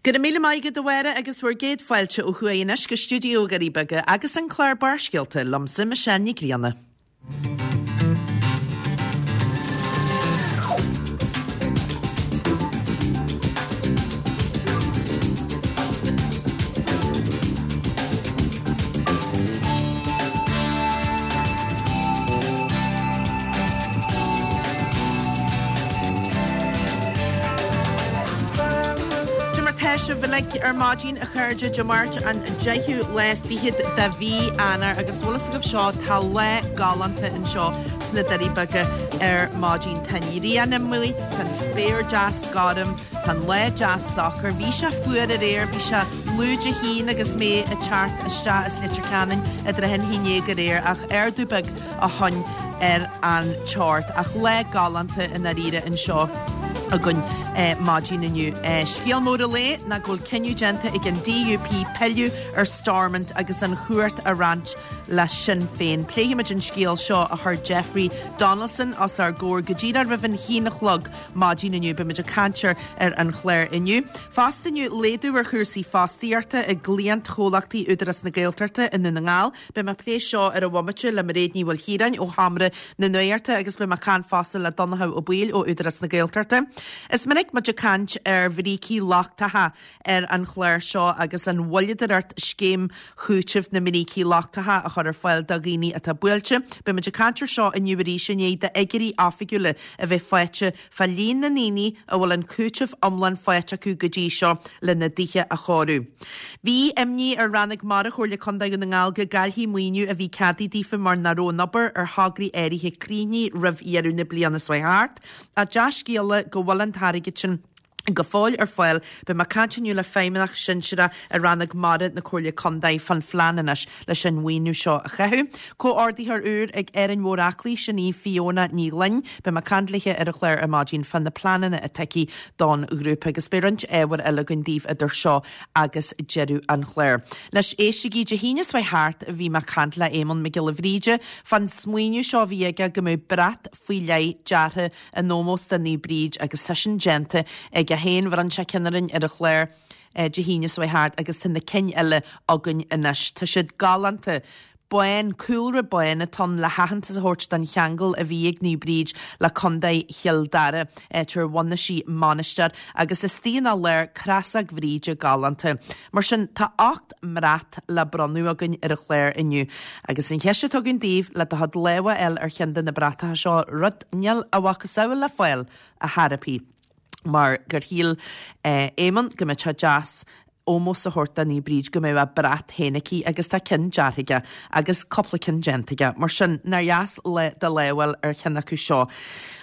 Go raibh míle maith agat a Mháire agus bhur gcéad fáilte ó thuaidh anois go stiúideo Dhoirí Beaga agus an clár Barrscéalta liomsa Michelle Ní Grianna. Cad é mar tá sibh uilig ar maidin a chairde Dé Máirt an 10ú lá fichead de mhí Eanáir agus bhfuil fhios agaibh seo tá lá galánta anseo sna Doirí Beaga ar maidin. Tá an ghrian amuigh, tá an spéir deas gorm, tá an lá deas socair. Bhí sé fuar aréir, bhí sé lúide a haon agus mé ag teacht isteach as Leitir Ceanainn i dtrátha an haon dhéag aréir ach ardú beag ó shoin ar an teocht. Ach lá galánta i ndáiríre anseo againn maidin inniu. Scéal mór an lae ná go bhfuil cinneadh déanta ag an DUP pilleadh ar Stormont agus an chumhacht a roinnt le Sinn Féin. Pléifimid an scéal seo a chuir Jeffrey Donaldson os ár gcomhair go díreach roimh an haon a chlog maidin inniu. Beimid ag caint air ar an chlár inniu. Fosta inniu, laghdú ar chúrsaí fostaíochta i gcliantchomhlachtaí Údarás na Gaeltachta i nDún na nGall. Beidh mé ag plé seo ar an bhomaite le Mairéad Ní Mhaoilchiaráin ó Sheomra na Nuachta agus beidh mé ag caint fosta le Donnchadh Ó Baoill ó Údarás na Gaeltachta. Is minic muid ag caint ar bhrící lochtacha ar an chlár seo agus an mhoilleadóireacht scéim chúitimh na mbrící lochtacha a chur ar fáil do dhaoine atá buailte. Beidh muid ag caint ar seo inniu arís i ndiaidh d'fhigiúirí oifigiúla a bheith faighte fá líon na ndaoine a bhfuil an cúiteamh iomlán faighte acu go dtí seo lena dtithe a chóiriú. Bhí imní ar Rannóg Mara Chomhairle Contae Dhún na nGall go gcaillfí maoiniú a bhí ceadaithe daofa mar nach raibh an obair ar thograí áirithe críochnaithe roimh dheireadh na bliana seo thart. Ach dea-scéala go bhfuil an t-airgead sin go fóill ar fáil. Beidh mé ag caint inniu le feidhmeannach sinsearach i Rannóg Mara na Comhairle Contae fán phlean anois leis an mhaoiniú seo a chaitheamh. Comhordaitheoir úr ag Árainn Mhór Aclaí, sin í Fiona Ní Ghloinn. Beidh mé ag caint léithe ar an chlár ar maidin fá na pleananna atá aici don ghrúpa agus beidh roinnt ábhair eile againn daoibh idir seo agus deireadh an chláir. Anois éistigí, Dé hAoine seo thart bhí mé ag caint le Éamonn Mac Giolla Bhríde fán smaoineamh seo a bhí aige go mbeadh brat faoi leith deartha in ómós do Naomh Bríd agus tá sin déanta aige féin. Bhronn sé ceann orainn ar an chlár Dé hAoine seo thart agus tá na cinn eile againn anois. Tá siad galánta. Bán, cúlra bán atá ann le haitheantas a thabhairt don cheangal a bhí ag Naomh Bríd le Contae Chill Dara, áit ar bhunaigh sí mainistir, agus istigh ina lár crosóg Bhríde galánta. Mar sin, tá 8 mbrat le bronnadh againn ar an chlár inniu. Agus an cheist atá againn daoibh, le do chuid lámha a fháil ar cheann de na bratacha seo, rud níl a mhacasamhail le fáil ar chor ar bith, mar gur shíl Éamonn go mbeadh sé deas ómós a thabhairt do Naomh Bríd go mbeadh a brat féin aici agus tá ceann deartha aige agus cúpla ceann déanta aige. Mar sin, nár dheas le do lámh a fháil ar cheann acu seo.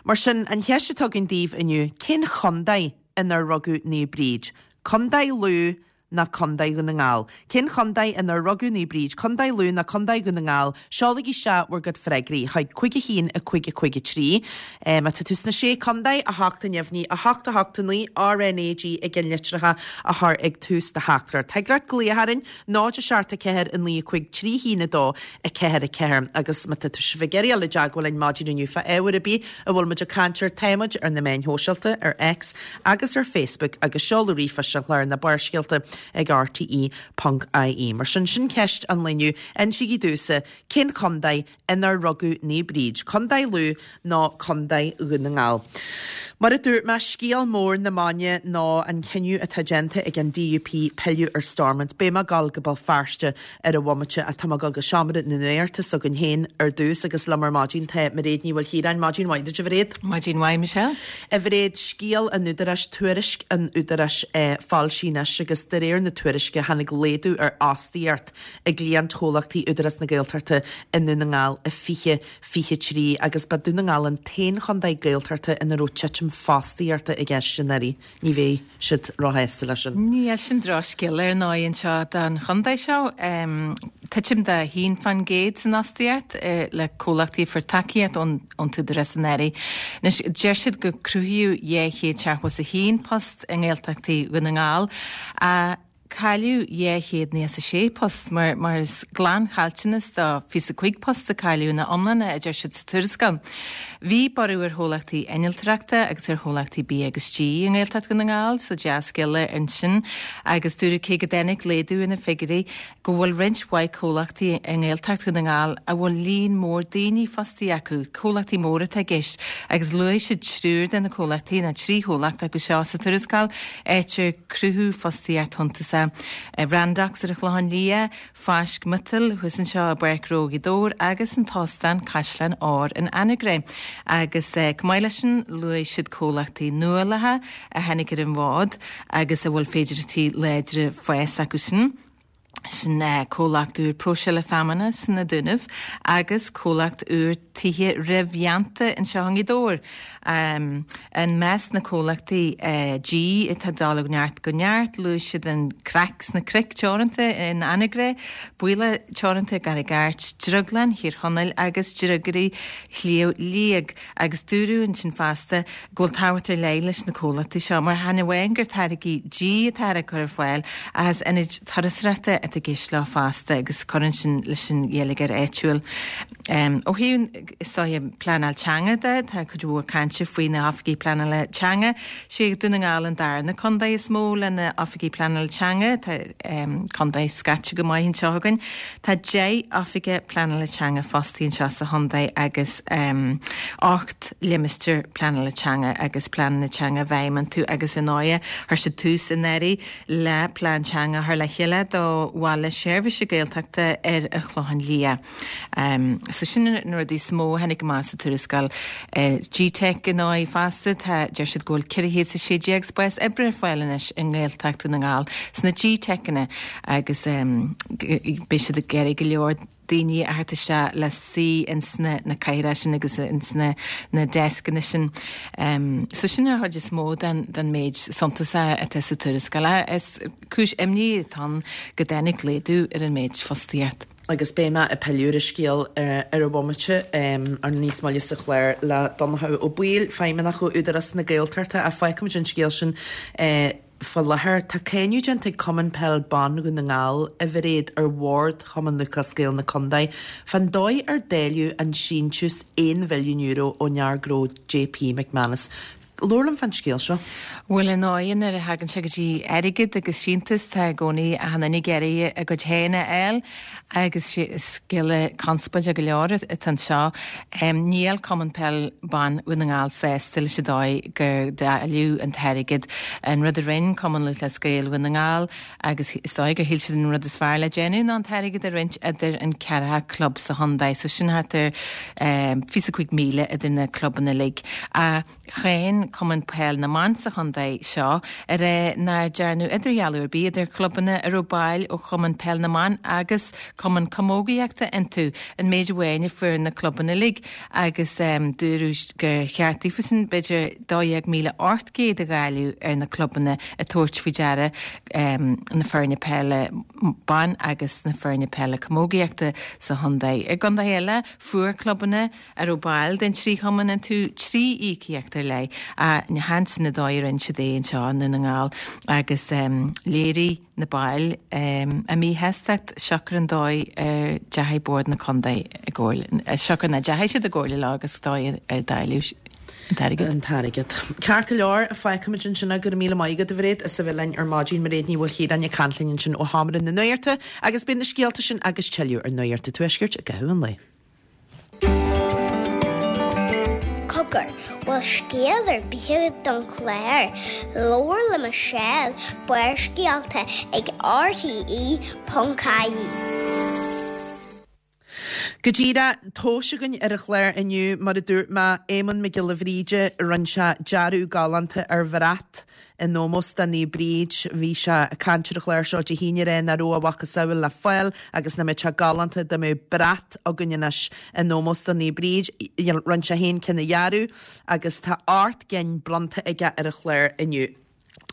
Mar sin, an cheist atá againn daoibh inniu, cén chontae inar rugadh Naomh Bríd? Contae Lú nó Contae Dhún na nGall? Cén chontae inar rugadh Naomh Bríd? Contae Lú nó Contae Dhún na nGall? Seolaigí isteach bhur gcuid freagraí chuig 5 1 5 5 3. Má tá tú sna Sé Contae, 8 a neamhní, 8 8 9, RNAG i gceannlitreacha a chur ag tús do theachtaireacht. Thig leat glaoch orainn, 0 7 4 9 5 3 1 2 4 4 agus má tá sibh ag iarraidh dul i dteagmháil linn maidin inniu fá ábhar ar bith a bhfuil muid ag caint air, tá muid ar na meáin shóisialta, ar X agus ar Facebook agus seoladh ríomhphoist an chláir ná Barrscéalta ag rte.ie. Mar sin, sin ceist an lae inniu. Insígí domhsa, cén chontae inar rugadh Naomh Bríd, Contae Lú nó Contae Dhún na nGall. Mar a dúirt mé, scéal mór na maidine ná an cinneadh atá déanta ag an DUP pilleadh ar Stormont. Beidh mé ag dul go Béal Feirste ar an bhomaite ach tá mé ag dul go seomra na nuachta s'againn féin ar dtús agus liom ar maidin tá Mairéad Ní Mhaoilchiaráin. Maidin mhaith duit, a Mhairéad. Maidin mhaith, Michelle. A Mhairéad, scéal an Údaráis, tuairisc an Údaráis foilsithe anois agus de réir na tuairisce tháinig laghdú ar fhostaíocht i gcliantchomhlachtaí Údarás na Gaeltachta i nDún na nGall i 2023 agus ba Dún na nGall an t-aon chontae Gaeltachta ina raibh titim fostaíochta i gceist anuraidh. Ní bheidh siad róshásta leis sin. Níl, sin drochscéal ar ndóigh anseo don chontae seo. Titim de 1% san fhostaíocht le comhlachtaí a fuair tacaíocht ón t-údarás anuraidh. Anois, deir siad gur cruthaíodh 271 post i nGaeltachtaí Dhún na nGall. Cailleadh 296 post, mar is glanchaillteanas de 25 post a cailleadh ina iomláine, a deir siad sa tuarascáil. Bhí borradh ar chomhlachtaí innealtóireachta agus ar chomhlachtaí bia agus dí i nGaeltacht Dhún na nGall, so dea-scéala ansin, agus dúradh cé go dtáinig laghdú ar na figiúirí, go bhfuil roinnt mhaith comhlachtaí i nGaeltacht Dhún na nGall a bhfuil líon mór daoine fostaithe acu, comhlachtaí móra atá i gceist, agus luaigh siad triúr de na comhlachtaí, nó 3 chomhlacht acu seo sa tuarascáil, áit ar cruthú fostaíocht shuntasach, Randox ar an Chlochán Liath, Fáisc Miotail thuas anseo i bPáirc Ghnó Ghaoth Dobhair agus an tÓstán Caisleán Óir in Anagaire. Agus chomh maith leis sin, luaigh siad comhlachtaí nuálacha a tháinig ar an bhfód agus a bhfuil féidearthachtaí láidre fáis acu sin. Sin comhlacht úr próiseála feamainne sna Dúnaibh agus comhlacht úr tithe réamhdhéanta anseo i nGaoth Dobhair. I measc na comhlachtaí dí atá ag dul ó neart go neart, luaigh siad an Craic sna Cnoic Teoranta in Anagaire, Baoilleach Teoranta i gCarraig Airt, Drioglann Thír Chonaill agus Driogairí Shliabh Liag. Agus dúradh ansin fosta go bhfuil tábhacht ar leith leis na comhlachtaí seo mar chan amháin gur táirgí dí atá á gcur ar fáil ach is ionaid turasóireachta atá i gceist leo fosta agus cuireann sin leis an gheilleagar áitiúil. Ó thaobh, is dóiche, pleanáil teanga de, tá cuid mhór cainte faoi na hoifigigh pleanála teanga. Sé Dún na nGall an darna contae is mó le na oifigigh pleanála teanga. Tá contae scaite go maith anseo againn. Tá 10 oifigeach pleanála teanga fostaithe anseo sa chontae agus 8 limistéar pleanála teanga agus pleananna teanga i bhfeidhm iontu agus ar ndóighe chuir siad tús anuraidh le plean teanga a chur le chéile do Bhaile Seirbhíse Gaeltachta ar an Chlochán Liath. So sin na rudaí is mó a tháinig amach sa tuarascáil. GTeic ar ndóigh fosta, tá, deir siad go bhfuil 416 spás oibre ar fáil anois i nGaeltacht Dhún na nGall sna GTeiceanna agus beidh siad ag iarraidh go leor daoine a thabhairt isteach le suí ins na na cathaoireacha sin agus ins na na deascanna sin. So sin an chuid is mó den den méid suntasach atá sa tuarascáil. Is cúis imní atá ann go dtáinig laghdú ar an méid fostaíocht. Agus beidh mé ag pilleadh ar an scéal ar an bhomaite ar níos moille sa chlár le Donnchadh Ó Baoill, Feidhmeannach ó Údarás na Gaeltachta, ach fágfaimid an scéal sin Faoi láthair, tá cáineadh déanta ag Cumann Peil Ban Dhún na nGall, a Mhairéad, ar Bhord Chumann Lúthchleas Gael na Condae fán dóigh ar dáileadh an síntiús €1 mhilliún ón fhear gnó JP McManus. Labhair liom fán scéal seo. Bhuel, ar ndóigh, nuair a thagann sé go dtí airgead agus síntiús, tá i gcónaí achan duine ag iarraidh a gcuid féin a fháil agus scéal conspóideach go leor atá anseo. Níl Cumann Peil Ban Dhún na nGall sásta leis an dóigh gur dáileadh an t-airgead. An rud a rinne Cumann Lúthchleas Gael Dhún na nGall agus is dóigh gur shíl siad an rud is fearr le déanamh ná an t-airgead a roinnt idir an ceathracha club sa chontae. So sin thart ar 25,000 idir na clubanna uilig. Ach cháin Cumann Peil na mBan sa chontae seo ag rá nár dearnadh idirdhealú ar bith idir clubanna a raibh baill ó Chumann Peil na mBan agus Cumann Camógaíochta iontu, an méid amháin a fuair na clubanna uilig agus dúradh gur cheart daofasan b'fhéidir 12,800 a dháileadh ar na clubanna ag tabhairt faoi deara na foirne peile ban agus na foirne peile camógaíochta sa chontae. I gcontaetha eile fuair clubanna a raibh baill den trí chumann iontu 3 íocaíocht ar leith ach chan sin an dóigh a rinne siad é anseo i nDún na nGall agus léirigh na baill a míshástacht siocair an dóigh ar deachaigh Bord na Contae i gcomhairle, siocair nach ndeachaigh siad i gcomhairle leo agus dóigh ar dáileadh an t-airgead. an t-airgead. Ceart go leor, fágfaimid ansin é. Go raibh míle maith agat, a Mhairéad, as a bheith linn ar maidin. Mairéad Ní Mhaoilchiaráin ag caint linn ansin ó Sheomra na Nuachta agus beidh na scéalta sin agus tuilleadh ar Nuacht an Tuaiscirt i gcaitheamh an lae. Cogar, bhfuil scéal ar bith agat don chlár? Labhair le Michelle, Barrscéalta ag RTE.ie. Go díreach, tomhais againn ar an chlár inniu, mar a dúirt mé, Éamonn Mac Giolla Bhríde, rinne sé dearadh galánta ar bhrat in ómós do Naomh Bríd. Bhí sé ag caint ar an chlár seo Dé hAoine ag rá nach raibh a mhacasamhail le fáil agus nach mbeadh sé galánta dá mbeadh brat againn anois in ómós do Naomh Bríd. Rinne sé féin ceann a dhearadh agus tá 8 gcinn bronnta aige ar an chlár inniu.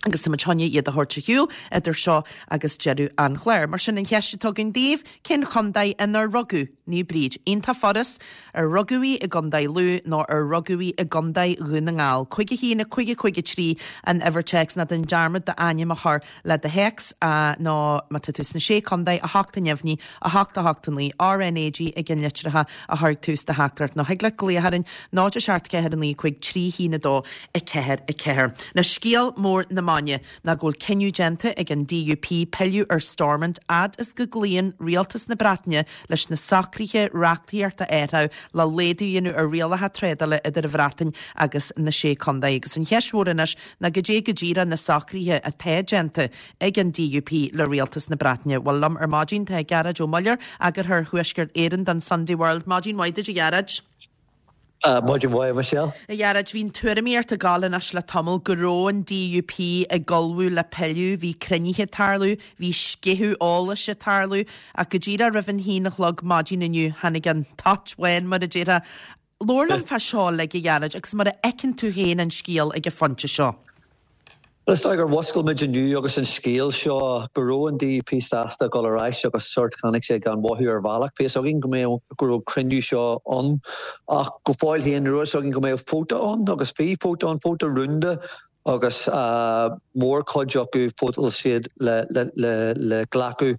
Agus tá muid chun iad a thabhairt ar shiúl idir seo agus deireadh an chláir. Mar sin, an cheist atá againn daoibh, cén chontae inar rugadh Naomh Bríd? Iontach furast, ar rugadh í i gContae Lú nó ar rugadh í i gContae Dhún na nGall? 5 1 5 5 3 an uimhir téacs ná déan dearmad d'ainm a chur le do théacs nó má tá tú sna Sé Contae, 8 neamhní, 8 8 9, RNAG i gceannlitreacha a chur ag tús do theachtaireacht nó thig leat glaoch orainn 0 7 4 9 5 3 1 2 4 4. Anois scéal mór na maidine ná go bhfuil cinneadh déanta ag an DUP pilleadh ar Stormont fhad is go gcloíonn Rialtas na Breataine leis na socruithe reachtaíochta a athrú le laghdú a dhéanamh ar rialacha trádála idir an Bhreatain agus na Sé Contae. Agus an cheist mhór anois ná goidé go díreach na socruithe atá déanta ag an DUP le Rialtas na Breataine. Bhuel, liom ar maidin tá Gearóid Ó Muilleoir, Eagarthóir Thuaisceart Éireann don Sunday World. Maidin mhaith duit, a Ghearóid. Maidin mhaith, a Michelle. A Ghearóid, bhí an tuairimíocht ag gabháil anois le tamall go raibh an DUP ag ullmhú le pilleadh, bhí cruinnithe ag tarlú, bhí sceitheadh eolais ag tarlú, ach go díreach roimh an haon a chlog maidin inniu tháinig an toit bhán, mar a déarfá. Labhair liom fá seo uilig, a Ghearóid, agus mar a fheiceann tú féin an scéal ag an phointe seo. Bhuel, is dóigh gur mhuscail muid inniu agus an scéal seo go raibh an DUP sásta dul ar ais agus sórt tháinig sé gan mhothú ar bhealach. Bhí fhios againn go mbeadh, go raibh cruinniú seo ann ach go fóill féin ní raibh fhios againn go mbeadh vóta ann agus bhí vóta ann, vóta rúnda agus mórchuid acu vótáil siad le, le, le, le glacadh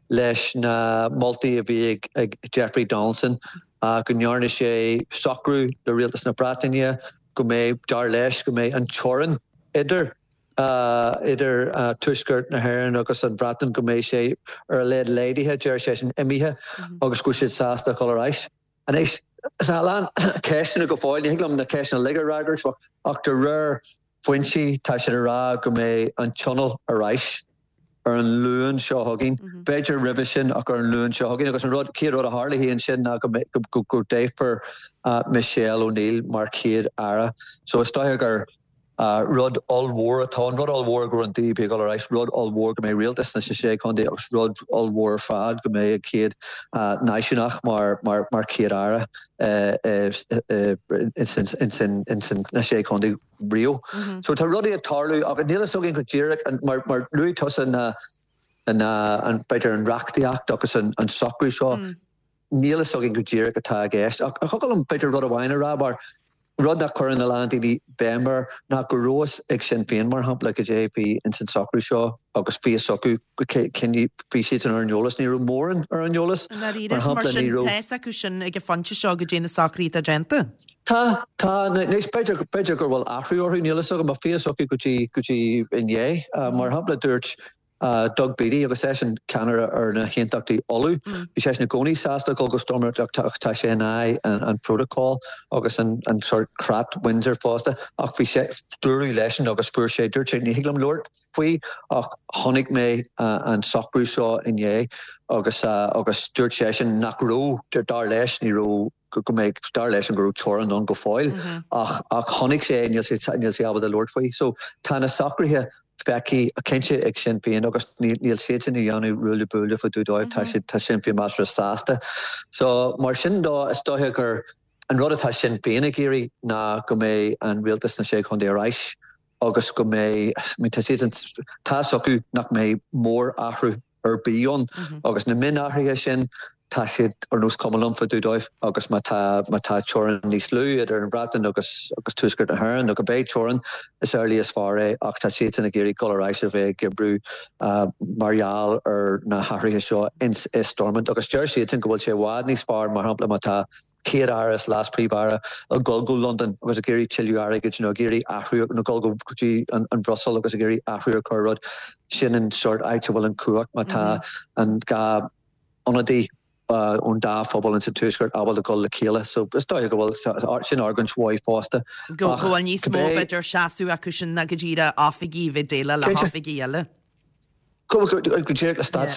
leis na moltaí a bhí ag Jeffrey Donaldson go ndearna sé socrú le Rialtas na Breataine go mbeidh, dar leis, go mbeidh an teorainn idir idir Tuaisceart na hÉireann agus an Bhreatain, go mbeidh sé ar a laghad laghdaithe, deir seisean, imithe agus go bhfuil siad sásta dul ar ais. Anois, tá a lán ceisteanna go fóill, ní thig liom na ceisteanna uilig a fhreagairt ach de réir foinsí, tá siad ag rá go mbeidh an Tionól ar ais ar an Luan seo chugainn, b'fhéidir roimhe sin ach ar an Luan seo chugainn. Agus an rud, chéad rud a tharlaíonn ansin ná go go go dtoghfar Michelle O'Neill mar Chéad Aire. So is dóiche gur rud ollmhór atá ann, rud ollmhór go raibh an DUP ag dul ar ais, rud ollmhór go mbeidh rialtas sna sé chontae agus rud ollmhór ar fad go mbeidh an chéad náisiúnach mar mar mar Chéad Aire ins na sé chontae riamh. So tá rudaí ag tarlú ach níl fhios againn go díreach mar mar luaigh tusa na na an b'fhéidir an reachtaíocht agus an an socrú seo níl fhios againn go díreach atá i gceist. Ach thiocfadh liom b'fhéidir rud amháin a rá mar rud nach cuireann a lán daoine béim air ná go raibh fhios ag Sinn Féin mar shampla goidé bhí ins an socrú seo agus bhí fhios acu bhí siadsan ar an eolas, ní raibh mórán ar an eolas. I ndáiríre, mar shampla ní raibh. Tá fhios acu sin ag an phointe seo goidé na socruithe atá déanta. Tá, tá, anois b'fhéidir, b'fhéidir go bhfuil athrú orthu, níl fhios agam, ach bhí fhios acu go dtí, go dtí inné. Mar shampla dúirt Doug Beattie, agus eisean ceannaire ar na hAontachtaí Uladh, bhí seisean i gcónaí sásta dul go Stormont ach tá sé in aghaidh an protocol agus an sórt creat Windsor fosta ach bhí sé, dúradh leisean agus fuair sé, dúirt sé ní thig liom labhairt faoi ach chonaic mé an socrú seo inné agus agus dúirt seisean nach raibh, dar leis, ní raibh go mbeidh, dar leisean go raibh teorainn ann go fóill ach ach chonaic sé é, níl sé níl sé ábalta labhairt faoi. So tá na socruithe feicthe cinnte ag Sinn Féin agus níl níl siadsan ag déanamh ruaille buaille fá dtaobh dóibh, tá siad tá Sinn Féin measartha sásta. So mar sin dó is dóiche gur an rud atá Sinn Féin ag iarraidh ná go mbeidh an rialtas sna Sé Chontae ar ais agus go mbeidh, I mean tá siadsan tá fhios acu nach mbeidh mór-athrú ar bith ann agus na mionathruithe sin tá siad ar nós cuma liom fá dtaobh dóibh agus má tá má tá teorainn níos lú idir an Bhreatain agus agus Tuaisceart na hÉireann nó go mbeidh teorainn is amhlaidh is fearr é ach tá siadsan ag iarraidh dul ar ais a bheith ag oibriú mar gheall ar na hathruithe seo ins i Stormont agus deir siadsan go bhfuil sé i bhfad níos fearr mar shampla má tá Chéad-Aire is Leas-Phríomh-Aire ag dul go Londain agus ag iarraidh tuilleadh airgid nó ag iarraidh athrú nó dul go dtí an Bhruiséil agus ag iarraidh athrú a chur ar rud. Sin an sórt áit a bhfuil an cumhacht má tá an dá ionadaí ón dá phobal ins an Tuaisceart ábalta dul le chéile. So is dóiche go bhfuil sin argóint mhaith fosta. Go bhfuil níos mó b'fhéidir seasamh acu sin ná go díreach oifigigh a bheith ag déileáil le hoifigigh eile. Go díreach le stát,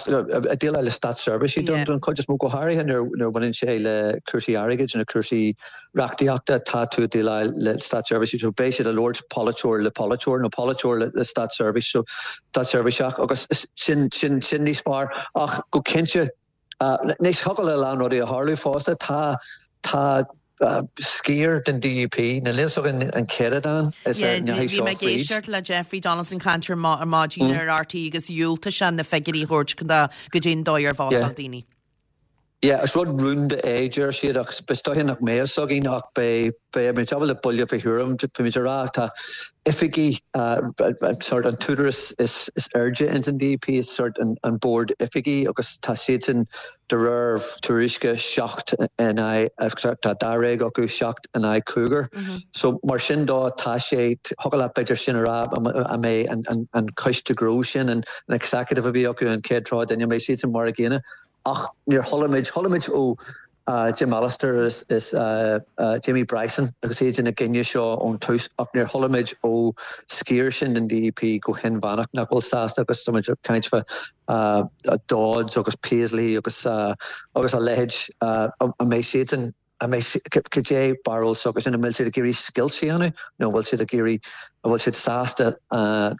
ag déileáil le státseirbhísigh don chuid is mó, go háirithe nuair a bhaineann sé le cúrsaí airgid nó cúrsaí reachtaíochta, tá tú ag déileáil le státseirbhísigh so beidh siad ag labhairt polaiteoir le polaiteoir nó polaiteoir le státseirbhís, so státseirbhíseach agus sin, sin, sin níos fearr. Ach go cinnte, anois thiocfadh le a lán rudaí a tharlú fosta, tá, tá. Sciar den DUP, níl a fhios againn an céatadán is a ndeachaigh seo fríd. Bhí mé ag éisteacht le Jeffrey Donaldson caint ar maidin ar RTÉ agus dhiúltaigh sé na figiúirí a thabhairt goidé an dóigh ar vótáil daoine. Yeah, is rud rúnda é, deir siad, ach is dóiche nach mbeidh fhios againn ach beidh, beidh muid ábalta buille fé thuairim, bhí muid ag rá tá oifigí, sort an t-údarás is airde ins an DUP is sort an bord oifigí agus tá siadsan De réir tuairisce, 7 in aghaidh, tá dáréag acu, 7 in aghaidh cúigear. So mar sin dó, tá sé, thiocfadh leat b'fhéidir sin a rá, an mbeidh an coiste gnó sin, an executive a bhí acu, an chéad tráth duine, an mbeidh siadsan mar a gcéanna? Ach níor chuala muid, chuala muid ó Jim Allister is Jamie Bryson agus iad ina gcoinne seo ón tús ach níor chuala muid ó sciar sin den DUP go hinmheánach nach bhfuil sásta agus tá muid ag caint fá Dodds agus Paisley agus agus a leithéid, an mbeidh siadsan, an mbeidh, cad é barúil s'acusan, an bhfuil siad ag iarraidh scoilt a dhéanamh nó an bhfuil siad ag iarraidh, an bhfuil siad sásta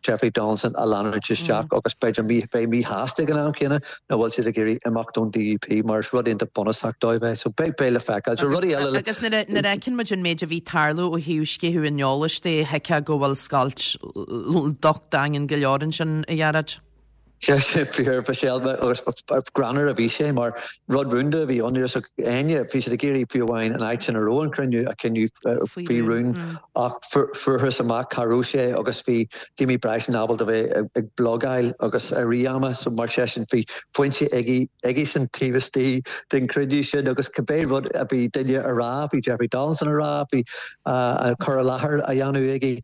Jeffrey Donaldson a leanúint isteach agus b'fhéidir mí, beidh míshásta ag an am céanna nó an bhfuil siad ag iarraidh imeacht ón DUP mar is rud iontach bunúsach dóibh é. So beidh, beidh le feiceáil. So rudaí eile le. Agus nuair a, nuair a fheiceann muid an méid a bhí ag tarlú ó thaobh sceitheadh an eolais de, thuigfeá go bhfuil scoilt docht daingean go leor ansin, a Ghearóid. Sé fíor, Michelle, agus greannmhar a bhí sé mar rud rúnda a bhí ann. Ní raibh a fhios ag éinne, bhí siad ag iarraidh fiú amháin an áit sin a raibh an cruinniú a choinneáil faoi rún ach fuarthas amach cá raibh sé agus bhí Jamie Bryson ábalta bheith ag blogáil agus i rith ama so mar sin bhí foinse aige aigesan taobh istigh den chruinniú sin agus cibé rud a bhí duine a rá, bhí Jeffrey Donaldson a rá, bhí cur i láthair á dhéanamh aige.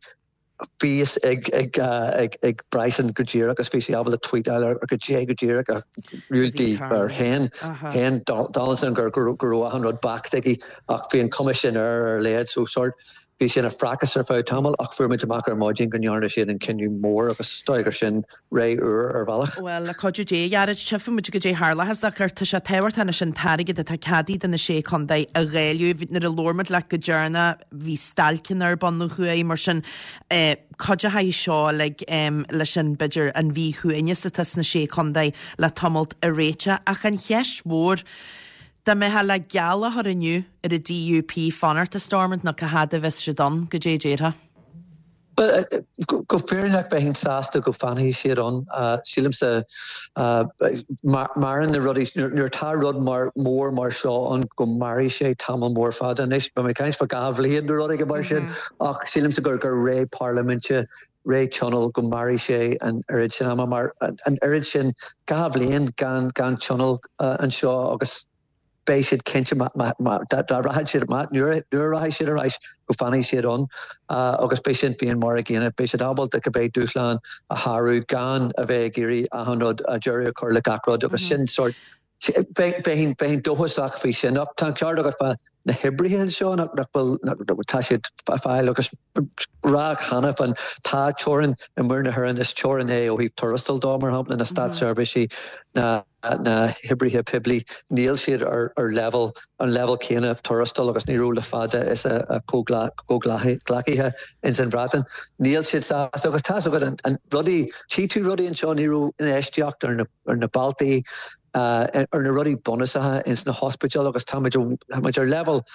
Bhí fhios ag Bryson go díreach agus bhí sé ábalta tweetáil ar go dé go díreach a dhiúltaigh ar shéan shéan Donaldson go raibh achan rud backed aige ach bhí an cuma sin air ar a laghad so sort bhí sé ina phracas ar feadh tamaill ach fuair muid amach ar maidin go ndearna siad an cinneadh mór agus is dóigh gur sin ré úr ar bhealach. Bhuel, le cuidiú Dé, a Ghearóid, tchífidh muid goidé tharlóchas ach tá sé tábhachtach anois an t-airgead atá ceadaithe do na Sé Chontae a dháileadh. Nuair a labhair muid leat go deireanach bhí stailceanna ar bun ó thuaidh, mar sin cuideochaidh seo uilig leis an, b'fhéidir, an mhíshuaimhneas atá sna Sé Chontae le tamalt a réiteach. Ach an cheist mhór, dá mbeifeá le geall a chur inniu ar an DUP fanacht i Stormont nó cá fhad a bheas siad ann, goidé a déarfá? Bhuel, go fírinneach bheinn sásta go bhfanfaidh siad ann. Sílimse, maireann na rudaí, nuair atá rud mar mór mar seo ann go mairfidh sé tamall mór fada. Anois, beidh mé ag caint fá 2 bhliain nó rud éigin mar sin, ach sílimse gur gur ré parlaiminte, ré tionóil, go mairfidh sé an oiread sin ama mar an oiread sin, 2 bhliain gan gan tionól anseo agus beidh siad cinnte dá rachaidh siad, nuair a rachaidh siad ar ais, go bhfanfaidh siad ann agus beidh Sinn Féin mar a gcéanna. Beidh siad ábalta cibé dúshlán a shárú gan a bheith ag iarraidh achan rud, deireadh a chur le gach rud agus sin sórt, bheinn dóchasach faoi sin. Ach tá an ceart agat fá na hoibrithe anseo nach bhfuil, tá siad ag fáil agus rá cheana féin tá teorainn i muir na hÉireann, is teorainn é ó thaobh tuarastail dó, mar shampla, na státseirbhísí, na. na hoibrithe poiblí, níl siad ar leibhéal, an leibhéal céanna tuarastail agus ní raibh le fada is a gcomhghleacaithe ins an Bhreatain. Níl siad sásta agus tá's agat an rudaí, tchí tú rudaí anseo, ní raibh infheistíocht ar na, ar na bealtaí, ar na rudaí bunúsacha ins na hospidéil agus táimid, táimid ar leibhéal,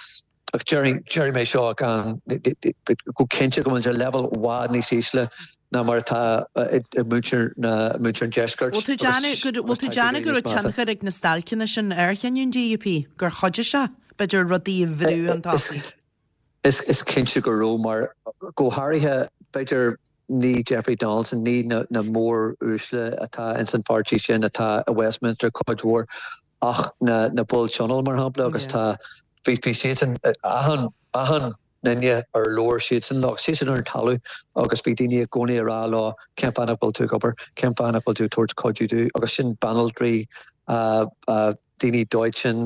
Ach déarfaidh mé seo gan, go cinnte go bhfuil muid ar leibhéal i bhfad níos ísle ná mar atá ag muintir na, muintir an deiscirt. Bhfuil tú déanamh go, bhfuil tú déanamh go raibh tionchar ag na stailceanna sin ar chinneadh an DUP, gur chuidigh sé, b'fhéidir, rudaí a bhrú chun tosaigh? Is cinnte go raibh, mar go háirithe, b'fhéidir, ní Jeffrey Donaldson, ní na mór-uaisle atá ins an pháirtí sin atá i Westminster cuid mhór, ach na na baill tionóil, mar shampla, agus tá, bhí, bhí siadsan, achan, achan nduine ar labhair siadsan leo, siadsan ar an talamh agus bhí daoine i gcónaí ag rá leo cén fáth nach bhfuil tú ag obair, cén fáth nach bhfuil tú ag tabhairt cuidiú dúinn agus sin banaltraí, daoine dóiteáin,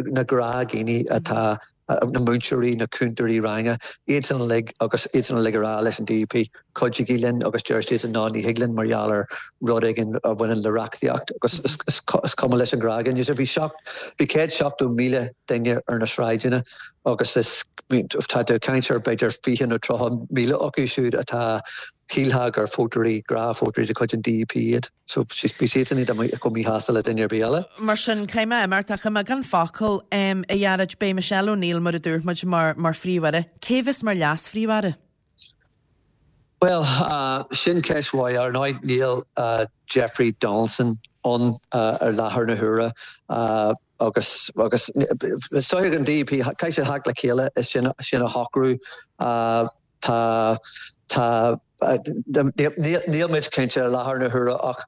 na gnáthdhaoine atá, na múinteoirí, na cúntóirí ranga, iadsan uilig agus iadsan uilig ag rá leis an DUP, cuidigí linn agus deir siadsan ná ní thig linn mar gheall ar rud éigin a bhaineann le reachtaíocht agus is cuma leis an ghnáthdhuine. So bhí 170,000 duine ar na sráideanna. Agus is, tá tú ag caint ar b'fhéidir 20 nó 30,000 acu siúd atá, shílfeá gur vótóirí, gnáthvótóirí de chuid an DUP iad. So bhí siadsan iad chomh míshásta le duine ar bith eile. Mar sin, caithfidh mé imeacht ach i mbeagán focal, a Ghearóid, beidh Michelle O'Neill, mar a dúirt muid, mar mar Phríomh-Aire. Cé a bheas mar Leas-Phríomh-Aire? Bhuel, sin ceist mhaith. Ar ndóigh, níl Jeffrey Donaldson ann ar láthair na huaire agus agus is dóigh ag an DUP, caithfidh siad theacht le chéile is sin sin a shocrú. Tá tá níl muid cinnte ar láthair na huaire ach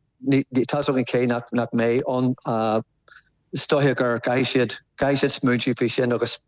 tá 's againn cé nach nach mbeidh ann. Is dóiche gur caithfidh siad caithfidh siad smaointiú faoi sin agus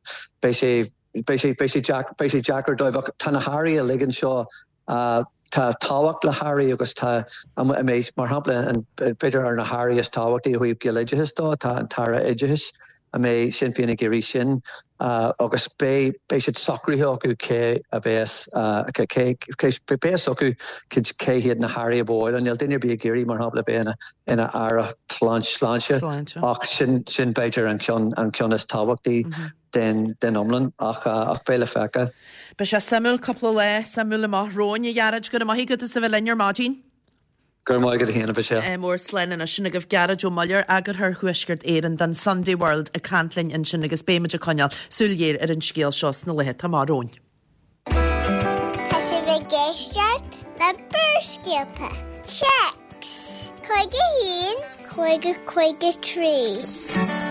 beidh sé Beidh sé, beidh sé deacair, beidh sé deacair dóibh ach tá na hairí uilig anseo, tá tábhacht le hairí agus tá, mar shampla, an, b'fhéidir ar na hairí is tábhachtaí ó thaobh Gaeloideachas dó, tá an tAire Oideachais, an mbeidh Sinn Féin ag iarraidh sin agus beidh, beidh siad socraithe acu cé a bheas, cé, cé, beidh fhios acu cé hiad na hairí a ba mhaith leo. Níl duine ar bith ag iarraidh, mar shampla, bheith ina, ina aire sláinte ach sin, sin b'fhéidir an ceann, an ceann is tábhachtaí. den iomlán ach beidh le feiceáil. Beidh sé suimiúil, cúpla lá suimiúil amach romhainn, a Ghearóid. Go raibh maith agat as a bheith linn ar maidin. Go raibh maith agat féin, a Mhichelle. Mór slán anois. Sin agaibh Gearóid Ó Muilleoir, Eagarthóir Thuaisceart Éireann don Sunday World ag caint linn ansin agus beidh muid ag coinneáil súil ghéar ar an scéal seo sna laetha atá amach romhainn. Tá sibh ag éisteacht le Barrscéalta. Téacs 51 50 53.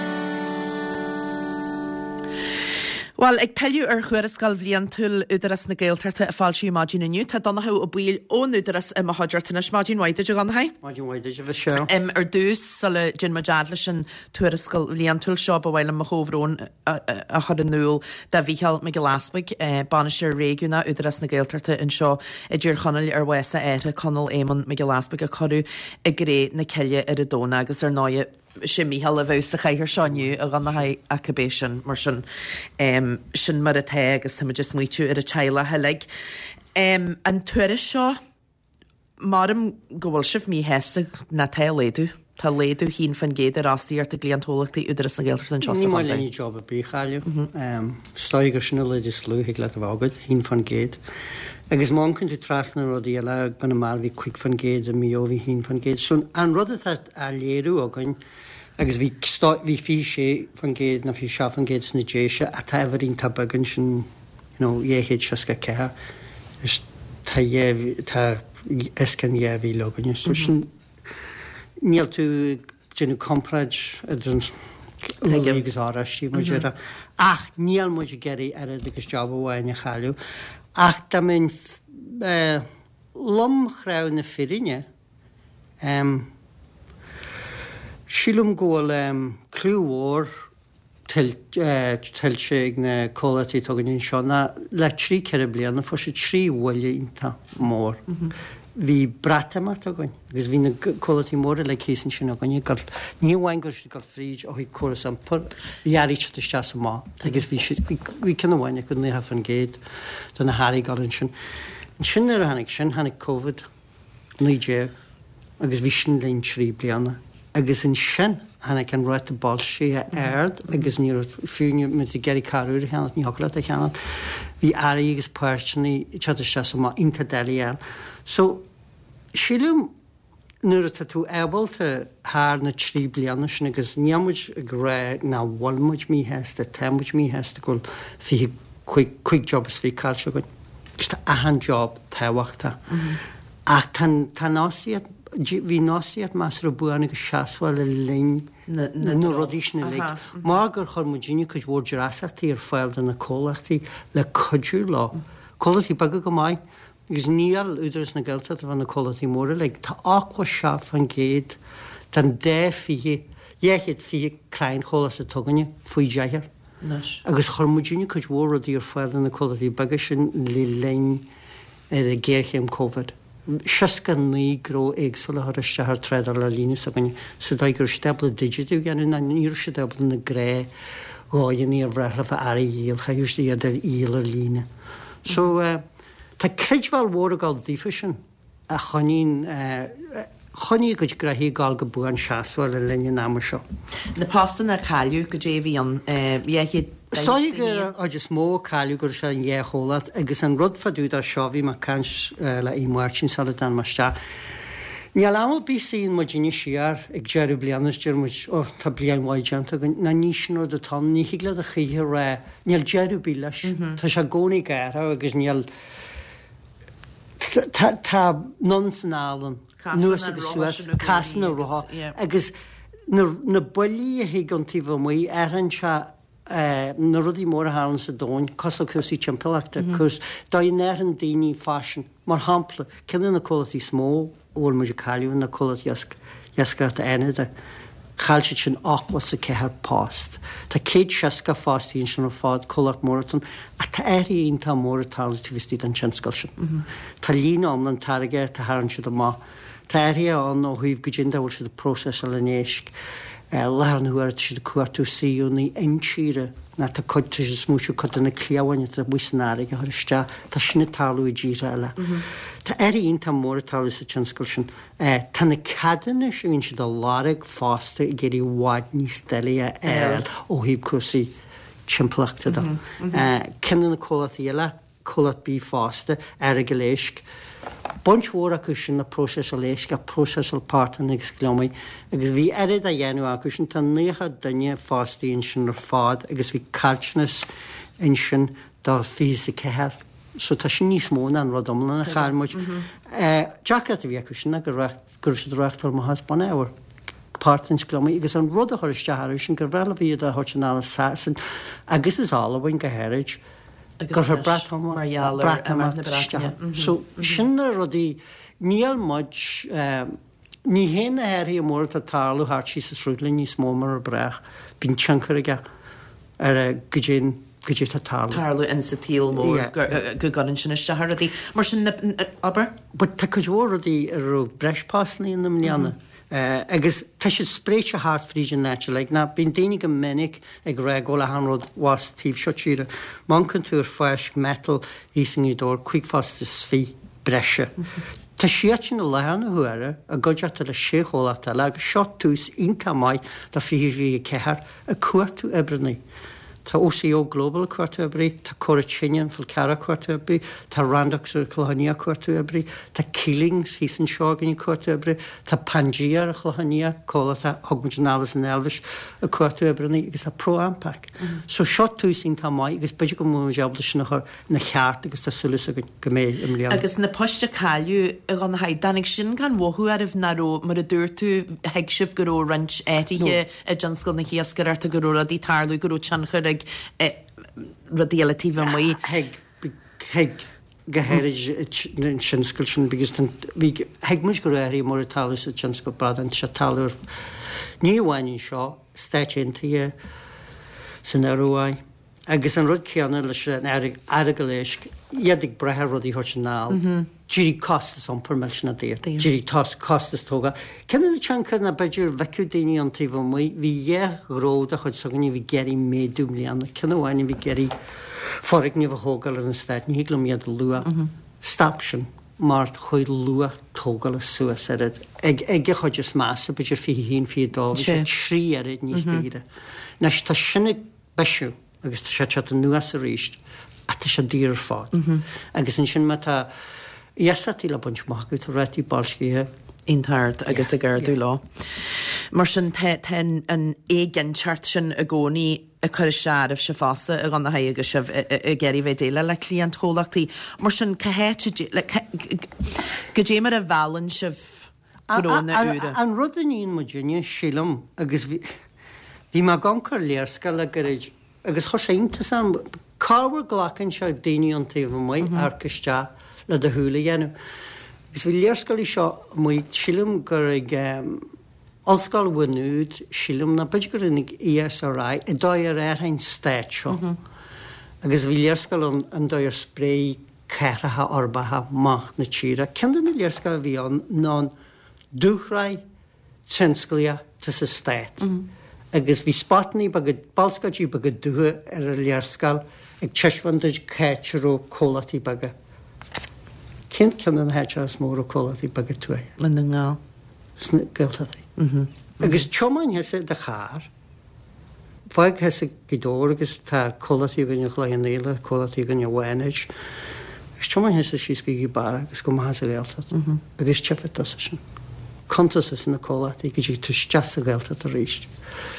Bhuel, ag pilleadh ar Thuarascáil Bhliantúil Údarás na Gaeltachta a foilsíodh maidin inniu, tá Donnchadh Ó Baoill ón Údarás i mo chuideachta anois. Maidin mhaith duit, a Dhonnchaidh. Maidin mhaith duit, a Mhichelle. Ar dtús, sula dtéann muid fhad leis an tuarascáil bhliantúil seo, ba mhaith liom mo chomhbhrón a chur in iúl do Mhícheál Mac Giolla Easbuig, Bainisteoir Réigiúnach Údarás na Gaeltachta anseo i dTír Chonaill ar bhás a athar, Conall Éamonn Mac Giolla Easbuig, a cuireadh i gcré na cille ar an Domhnach agus ar ndóigh sé Mícheál a bheadh sa chathaoir seo inniu a Dhonnchaidh ach cibé sin, mar sin, sin mar atá agus táimid ag smaoitiú ar an teaghlach uilig. An tuairisc seo. Maram go bhfuil sibh míshásta ná tá laghdú. Tá laghdú 1% ar fhostaíocht i gcliantchomhlachtaí Údarás na Gaeltachta anseo sa Ní maith chontae. linn job ar bith a chailleadh. Is dóigh gur sin an laghdú is lú a thig leat a bheith agat, 1%. Agus má amharcann tú trasna na rudaí eile, i gConamara bhí 5%, i Maigh Eo bhí 1%. So an rud atá á léiriú againn, agus bhí bhí 26% nó 27% sna Déise ach tá uimhir iontach beag ansin, you know, 264 is tá dhá, tá os cionn 2,000 againne. So sin, níl tú ag déanamh comparáid idir an úllaí agus oráistí, mar a déarfá. Ach níl muid ag iarraidh oiread agus job amháin a chailleadh. Ach dá mbeinn lomchráite na fírinne, em, sílim go bhfuil em, cliú mhór tuillte ag na comhlachtaí atá againn anseo ná le trí ceithre bliana fuair siad trí bhuille iontach mór. Bhí Breatimeacht againn agus bhí na comhlachtaí móra uilig thíos ansin againn ag dul, ní amháin go raibh siad ag dul fríd ó thaobh córas iompair, bhí earraí ag teacht isteach is amach agus bhí siad, bhí ceann amháin acu 90% de na hearraí ag dul ansin. Ansin nuair a tháinig sin, tháinig Covid. 19 agus bhí sin linn 3 bliana agus ansin tháinig an ráta boilscithe ard agus ní raibh, fiú má bhí tú ag iarraidh carr úr a cheannacht, ní thiocfadh leat é a cheannacht. Bhí earraí agus páirteanna ag teacht isteach is amach iontach doiligh a fháil. So, sílim nuair atá tú ábalta thar na 3 bliana sin agus níl muid ag rá nach bhfuil muid míshásta, tá muid míshásta go bhfuil 25, 5 job is 20 caillte againn. Agus tá achan job tábhachtach. Ach tá tá an fhostaíocht, bhí an fhostaíocht measartha buan agus seasmhach le linn na rudaí sin uilig. Mar gur chuir muidinne cuid mhór dreasachtaí ar fáil do na comhlachtaí le cuidiú leo. Comhlachtaí beaga go maith, agus níl Údarás na Gaeltachta bheith na comhlachtaí móra uilig. Tá 87% den dá 20, 220 cliantchomhlacht atá againne faoi deichniúr. anois. Agus chuir muidinne cuid mhór rudaí ar fáil do na comhlachtaí beaga sin le linn ghéarchéim Covid. 69 gnó éagsúla a chuir isteach ar trádáil ar líne s'againne sa dóigh go raibh siad ábalta digitiú a dhéanamh ná ní raibh siad ábalta na gnáthdhóigheanna ar bhreá leofa earraí a dhíol, chaithfeadh siad iad a dhíol ar líne. So tá creidbheáil mhór ag dul daofa sin. a choinníonn choinnigh a gcuid gnoithí ag gabháil go buan seasmhach le linn an ama seo. Na postanna a cailleadh, goidé a bhí ann? 200. Is dóigh gur an chuid is mó a cailleadh go raibh sé an dhá chomhlacht agus an rud fá dtaobh de seo, bhí mé ag caint le Aodh Máirtín sula dtáinig mé isteach, níl am ar bith suíonn muidinne siar ag deireadh bliana is deir muid oh tá bliain mhaith déanta againn, ná ní sin rud atá ann, ní thig leat a choíche a rá, níl deireadh ar bith leis, tá sé i gcónaí ag athrú agus níl, tá, tá anonn is anall ann. anuas agus suas, casann an roth agus na buillí a thig ón taobh amuigh, athraíonn sé na rudaí móra a tharlaíonn sa domhan, cosúil le cúrsaí timpeallachta, cúrsaí, dóigh a n-athraíonn daoine faisean. Mar shampla, ceann de na comhlachtaí is mó a bhfuil muid ag cailleadh ná comhlacht iascaireachta Fhánada. Chaill siad sin 84 post. Tá 160 fostaí ansin ar fad, comhlacht mór atá ann. Ach tá athruithe iontach mór ag tarlú taobh istigh den tionscal sin. Tá líne iomlán táirgeachta a tharraing siad amach. Tá athruithe ann ó thaobh goidé an dóigh a bhfuil siad ag próiseasáil an éisc. I láthair na huaire tá siad ag cuartú suíomhanna intíre ná tá cuid, tá siad ag smaoitiú cuid de na cliabháin atá amuigh san fharraige a chur isteach. Tá sin ag tarlú i dtíortha eile. Tá athruithe iontach mór ag tarlú sa tionscal sin. Tá na ceadúnais a bhíonn siad a lorg fosta ag éirí i bhfad níos doiligh a fháil ó thaobh cúrsaí timpeallachta de. Ceann de na comhlachtaí eile, comhlacht bídh fosta, Earagail Éisc, baint mhór acu sin le próiseáil éisc ach próiseáil portáin agus gliomaigh agus bhí oiread á dhéanamh acu sin, tá 90 duine fostaithe ansin ar fad agus bhí caillteanas ansin do 24. So tá sin níos mó ná an rud iomlán a chaill muid. Deacracht a bhí acu sin ná go raibh siad ag reáchtáil amach as bunábhar, portáin is gliomaigh, agus an rud a chuir isteach orthu sin gur bhreá leo iad a thabhairt anall as Sasain agus as Albain go háirid, gur chuir Breatimeacht isteach. So sin na rudaí, níl muid, Ní théann na hathruithe móra atá ag tarlú thart síos an sruthlán níos mó mar a bhreá. Bíonn tionchar aige ar goidé goidé atá ag tarlú. tarlú in sa tsaol mór go gcuireann sin isteach ar rudaí. Mar sin, abair. But tá cuid mhór rudaí a raibh breis postanna ann i mbliana agus tá siad spréite thart fríd an áit uilig. Ná bíonn daoine go minic ag rá go bhfuil achan rud abhus taobh seo tíre. Má amharcann tú ar Fáisc Metal thíos i nGaoth Dobhair, 25 phost breise. Tá siadsan i láthair na huaire i gcuideachta le sé chomhlacht eile agus seo tús iontach maith do 2024 ag cuartú oibreanna. Tá OCO Global ag cuartú oibrí, tá Cora Tine an Fhál Carrach ag cuartú oibrí, tá Randox ar an Chlochán Liath ag cuartú oibrí, tá Keelings thíos anseo againn ag cuartú oibrí, tá Pangea ar an Chlochán Liath, comhlacht a thug muid anall as an Eilvéis, ag cuartú oibreanna agus tá ProAmpac. So seo tús iontach maith agus b'fhéidir go mbeidh muid ábalta sin a chur ina cheart agus tá súil againn go mbeidh i mbliana. Agus na poist a cailleadh, a Dhonnchaidh, dtáinig sin gan mhothú oraibh nach raibh, mar a dúirt tú, thuig sibh go raibh roinnt athruithe i dtionscal na hiascaireachta, go raibh rudaí ag tarlú, go raibh tionchar ag rudaí eile taobh amuigh. Thuig, thuig, go háirid an tionscal sin because bhí, thuig muid go raibh athruithe móra ag tarlú sa tionscal bradán, tá sé ag tarlú ar, ní amháin anseo, Stáit Aontaithe, san Ioruaidh. Agus an rud céanna leis an Earagail Éisc, iad ag brath ar rudaí a thabhairt anall. D'éirigh costas iompair millteanach daor. D'éirigh costas tógála. Ceann de na tionchair ná b'fhéidir bhfeicfeadh daoine ón taobh amuigh, bhí dhá ghnó de chuid s'againne a bhí ag iarraidh méadú i mbliana. Ceann amháin a bhí ag iarraidh foirgneamh a thógáil ar an eastát, ní thig liom iad a lua. Stop sin mar chuaigh luach tógála suas oiread. Ag ag a chuid is measa, b'fhéidir 21, 22, bhí sé trí oiread níos daoire. Anois tá sin ag bisiú agus tá sé ag teacht anuas arís ach tá sé daor ar fad. Agus ansin má tá iasachtaí le baint amach agat, tá rátaí boilscithe. iontach ard agus ag ardú leo. Mar sin tá tá an éiginnteacht sin i gcónaí ag cur isteach oraibhse fosta a Dhonnchaidh agus sibh ag iarraidh bheith ag déileáil le cliantchomhlachtaí. Mar sin cá háit a goidé mar a mheallann sibh gnónna úra. An rud a níonn muidinne, sílim, agus bhí mé ag amharc ar léarscáil le gairid agus chuir sé iontas orm, corruair glacann sé daoine ón taobh amuigh amharc isteach le do shúil a dhéanamh. Agus bhí léarscáil seo amuigh, sílim gur ag Ollscoil Mhaigh Nuad, sílim, nó b'fhéidir gur ag ESRI, an dóigh ar athraigh an stát seo. Agus bhí léarscáil ann an dóigh ar spréigh cathracha uirbeacha amach na tíre. Ceann de na léarscáil a bhí ann ná an dúshraith tionsclaíoch atá sa stát agus bhí spotannaí beaga, bolscáidí beaga dubha ar an léarscáil ag taispeáint duit cá háit a raibh comhlachtaí beaga. Cén ceann de na háiteacha is mó a raibh comhlachtaí beaga tuaithe? I nDún na nGall. Sna Gaeltachtaí. Agus tiomáin thusa i do charr. Fág thusa Gaoth Dobhair agus tá comhlachtaí againn i gCloich Cheann Fhaola, comhlachtaí againn i bhFánaid. Agus tiomáin thusa síos go Gaoth Beara agus go amach sa Ghaeltacht agus tchífidh tusa sin. Cuntas tusa na comhlachtaí go dtig tú isteach sa Ghaeltacht arís.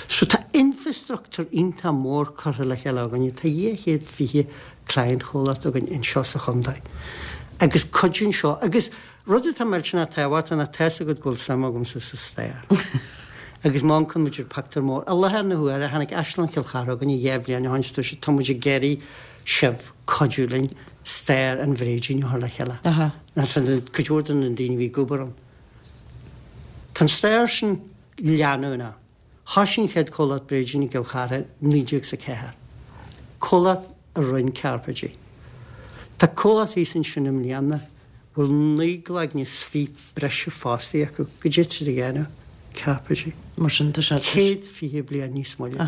So tá infrastruchtúr iontach mór curtha le chéile againne. Tá 220 client chomhlacht againn anseo sa chontae. Agus cuidíonn seo agus Rud atá millteanach tábhachtach ná tá's agat go bhfuil suim agamsa sa stair. Agus má amharcann muid ar pictiúr mór, i láthair na huaire, tháinig Áislann Chill Chartha chugainne 2 bhliain ó shin is dúirt siad tá muid ag iarraidh sibh cuidiú linn stair an bhréidín a chur le chéile. Cuid mhór de na daoine a bhí ag obair ann. Tá an stair sin leanúnach. Thoisigh an chéad chomhlacht bréidín i gCill Chartha i 1904, comhlacht a rinne cairpéidí. Tá comhlacht thíos ansin i mbliana a bhfuil 19 gcloigne is fiche breise fostaí acu. Goidé tá siad a dhéanamh? Cairpéidí. Mar sin, tá sé. 120 bliain níos moille.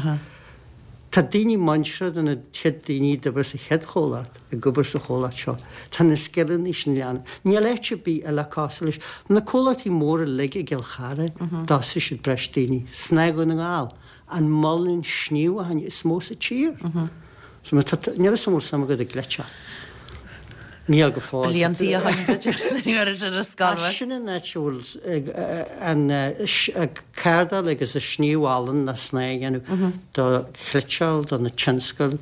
Tá daoine muinteartha de na chéad daoine a d'oibir sa chéad chomhlacht ag obair sa chomhlacht seo. Tá na scileanna sin leanúnach. Níl áit ar bith eile cosúil leis. Na comhlachtaí móra uilig i gCill Chartha, d'fhostaigh siad breis daoine. Snáth Dhún na nGall, an muileann sníomhacháin is mó sa tír. So má tá, níl 'fhios a'm an bhfuil suim agat i gcleiteach. Níl go fóill. Bliantaí ó shin, b'fhéidir, nuair a raibh ar scoil. Ach sin an áit a bhfuil an cardáil agus an sníomh olann le snáth a dhéanamh do chniotáil, do na tionscail.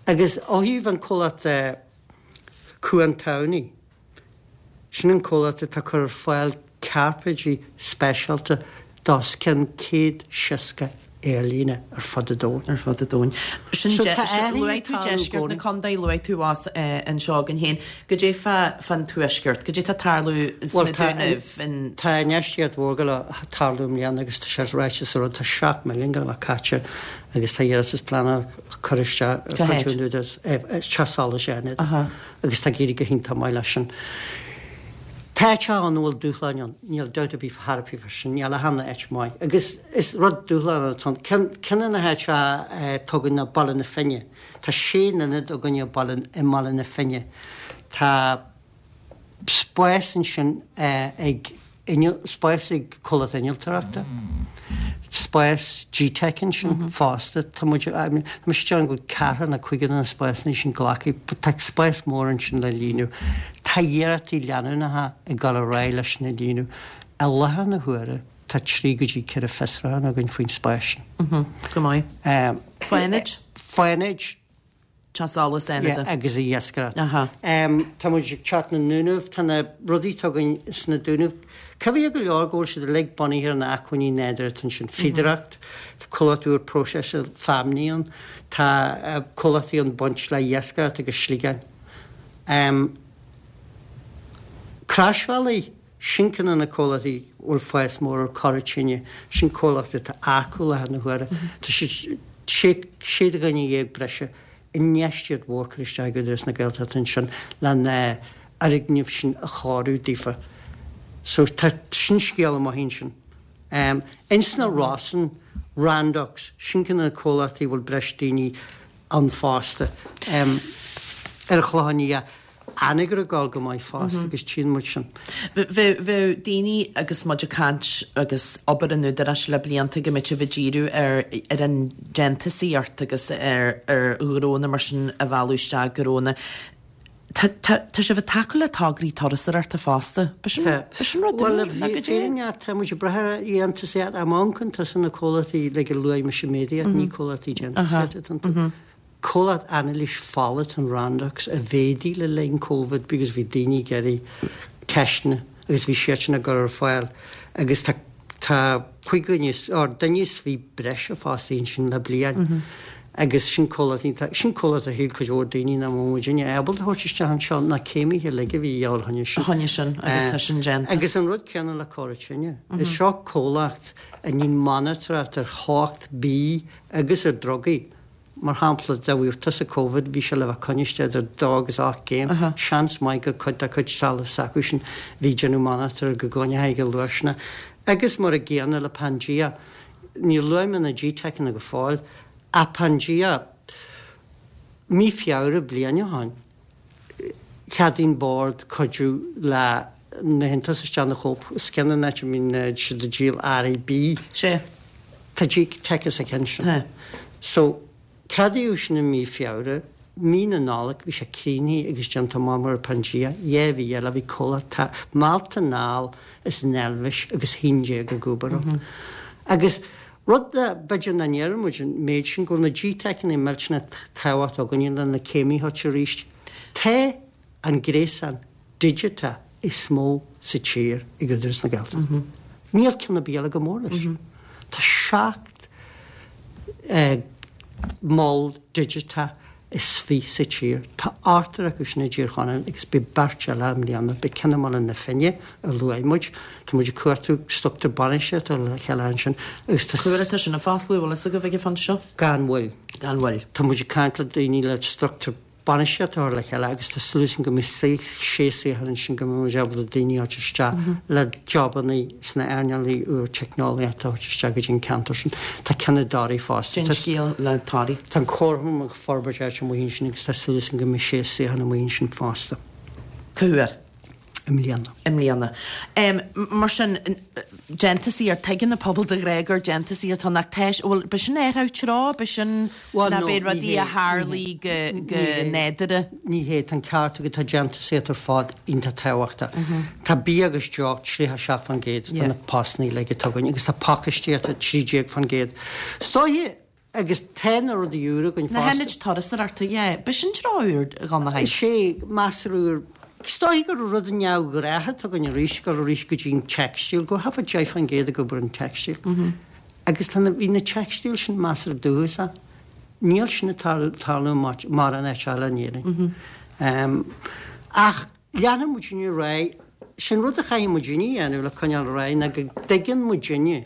Agus ó thaobh an comhlacht Cuan Tamhnaí, sin an comhlacht atá ag cur ar fáil cairpéidí speisialta d'os cionn 160 aerlíne ar fud an domhain. Ar fud an domhain. Sin So tá athruithe Luaigh tú ag tarlú i deisceart na gcónaí. contae, luaigh tú abhus anseo againn féin. Goidé fá fán tuaisceart? Goidé tá ag tarlú sna Bhuel tá Dúnaibh, in. Tá infheistíocht mhór ag gabháil a tarlú i mbliana agus tá sé ráite sa rud, tá 7 milliún ag gabháil a bheith caite agus tá iarratas pleanála curtha isteach ar Cá chuid háit? den Údarás, Teach Solais Fhánada. Aha. Agus tá ag éirí go hiontach maith leis sin. Tá áiteacha ann a bhfuil dúshláin ann, níl dabht ar bith chor ar bith fá sin, níl achan áit maith. Agus is rud dúshlánach atá ann. Ceann, ceann de na háiteacha atá againn ná Baile na Finne. Tá sé n-ionad againne i Baile, i mBaile na Finne. Tá spás ansin ag spás ag comhlacht innealtóireachta, spás GTeic ansin fosta. Tá muid, tá mise ag déanamh go bhfuil ceathrar nó cúigear de na spásanna sin glactha, but tá spás mór ansin le líonadh. Tá iarrachtaí leanúnacha ag dul ar aghaidh leis sin a líonadh. I láthair na huaire tá 3 go dtí 4 fiosrúchán againn faoin spás sin. Go maith. Fánaid? Fánaid. Teach Solais Fhánada. Yeah, agus iascaireacht. Tá muid ag teacht na nDúnaibh, tá na rudaí atá againn sna Dúnaibh, coimhthíoch go leor go bhfuil siad uilig bunaithe ar na acmhainní nádúrtha atá ansin, fíodóireacht, tá comhlacht úr próiseála feamnaí ann, tá comhlachtaí ann baint le iascaireacht agus sliogáin. Croisbhealaí. Sin ceann de na comhlachtaí a bhfuil fás mór ar Cora Tine. Sin comhlacht atá ag earcú i láthair na huaire. Tá siad 16 dhuine breise, infheistíocht mhór curtha isteach ag Údarás na Gaeltachta ansin le na fhoirgnimh sin a chóiriú daofa. So tá sin scéal maith ansin. Ins na Rosann, Randox, sin ceann de na comhlachtaí a bhfuil breis daoine ann fosta. Ar an Chlochán Liath, Anagaire ag dul go maith fosta agus tchíonn muid sin. Bheadh daoine agus muid ag caint agus obair an Údaráis le blianta go mbeadh sibh ag díriú ar ar an déantúsaíocht agus ar ar ghnónna mar sin a mhealladh isteach gnónna. Tá tá tá sibh ag tacú le tograí turasóireachta fosta. B'shin b'shin rud Bhuel, úr nó goidé? fírinne, tá muid ag brath ar dhéantúsaíocht. Má amharcann tusa na comhlachtaí like a luaigh mise méadaíocht, ní comhlachtaí déantúsaíochta atá iontu. Comhlacht anailís fola atá in Randox a mhéadaigh le linn Covid because bhí daoine ag iarraidh teisteanna agus bhí siadsan á gcur ar fáil agus tá tá 5 dhuine or duine is 20 breise fostaithe ansin le bliain agus sin comhlacht iontach sin comhlacht a shíl cuid mhór daoine nach mbeadh muidinne ábalta a thabhairt isteach anseo na céimithe uilig a bhí a dhíobháil choinne sin. Choinne sin agus tá sin déanta. Agus an rud céanna le Cora Tine. Is seo comhlacht a níonn monatóireacht ar theocht bídh agus ar drugaí. Mar shampla, dá bhfaigheadh tusa Covid, bhí sé le bheith coinnithe idir dó agus 8 gcéim. Seans maith gur cuid dá cuid trealamh s'acusan a bhí ag déanamh monatóir go gcoinneochaí go luath. Agus mar a gcéanna le Pangea, níor luaigh mé na G-Tecanna go fóill, ach Pangea, mí Feabhra bliain ó shin, Cheadaigh an Bord cuidiú le má théann tusa isteach ina Co-op, is ceann an áit a mbíonn siad ag díol earraí bídh. Sea. Tá G-Tech sa cheann sin. Tá. So, ceadaíodh sin i mí Feabhra, mí na Nollag bhí sé críochnaithe agus déanta amach mar Pangea, 2 mhí eile bhí comhlacht meallta anall as an Eilvéis agus 11 ag obair ann. Agus rud a b'fhéidir nach ndeireann muid an méid sin, go bhfuil na GTeiceanna millteanach tábhachtach againne le na céimithe arís. Tá an gréasán digiteach is mó sa tír ag Údarás na Gaeltachta. Níl ceann ar bith eile chomh mór leis. Tá 17 mol digiteach is 20 sa tír. Tá ochtar acu sin i dTír Chonaill agus beidh beirt eile i mbliana. Beidh ceann i mBaile na Finne a luaigh muid. Tá muid ag cuartú struchtúr bainistíochta le chéile ansin agus tá. Cá huair atá sin ag fosclú, bhfuil fhios agaibh ag an phointe seo? Gan mhoill. Gan mhoill. Tá muid ag caint le daoine le struchtúr bainistíochta a chur le chéile agus tá súil againn go mbeidh sé suíochán ansin go mbeidh muid ábalta daoine a thabhairt isteach le jobanna sna earnálaí úr teicneolaíochta a thabhairt isteach go dtí an ceantar sin. Tá ceann i dToraigh fosta. Cén scéal le Toraigh. Tá an comharchumann ag forbairt áit amuigh ansin agus tá súil againn go mbeidh sé suíochán amuigh ansin fosta. Cá huair? I mbliana. I mbliana. Mar sin, déantúsaíocht, tuigeann an pobal de ghnáth gur déantúsaíocht atá ann ach tá, bhuel, b'shin athrú treo, b'shin Bhuel, nó b'é rudaí a tharlaigh go, go nádúrtha. Ní hé, tá an ceart agat, tá déantúsaíocht ar fad iontach tábhachtach. Tá bia agus deoch 37% de na postanna uilig atá againn agus tá pacáistíocht 13%. Is dóiche Agus tá na rudaí úra againn fosta. Na hionaid turasóireachta, yeah. B'shin treo úr, a Dhonnchaidh. Is é, measartha úr. Is dóiche gur rud neamhghnách atá againn arís, dul arís go dtí an teicstíl, go thart fá 10% ag obair an teicstíl. Agus tá na, bhí na teicstíl sin measartha dúchasach. Níl sin ag tarlú mórán áit eile in Éirinn. Ach leanfaidh muidinne ar aghaidh. Sin rud a chaithfidh muidinne a dhéanamh le coinneáil ar aghaidh ná go dtuigeann muidinne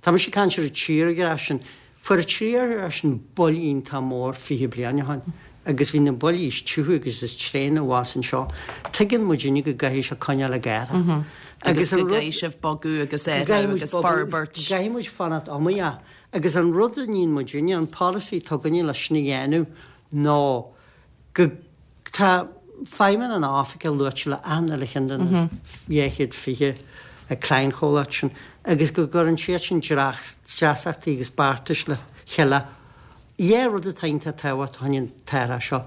Tá mise ag caint ar an tírdhreach sin. Fuair an tírdhreach sin buille iontach mór 20 bliain ó shin agus bhí na buillí is tiubha agus is tréine abhus anseo. Tuigeann muidinne go gcaithfidh sé coinneáil ag athrú. Agus go gcaithfidh sibh bogadh agus athrú agus forbairt. Go gcaithfidh muid fanacht iomaíoch. Agus an rud a níonn muidinne, an polasaí atá againne leis sin a dhéanamh ná go Tá feidhmeanna na hOifige luaite le achan uile cheann de na 220 cliantchomhlacht sin agus go gcuireann siad sin dreasachtaí agus beartais le chéile. Dhá rud atá iontach tábhachtach fá choinne an t-athrach seo,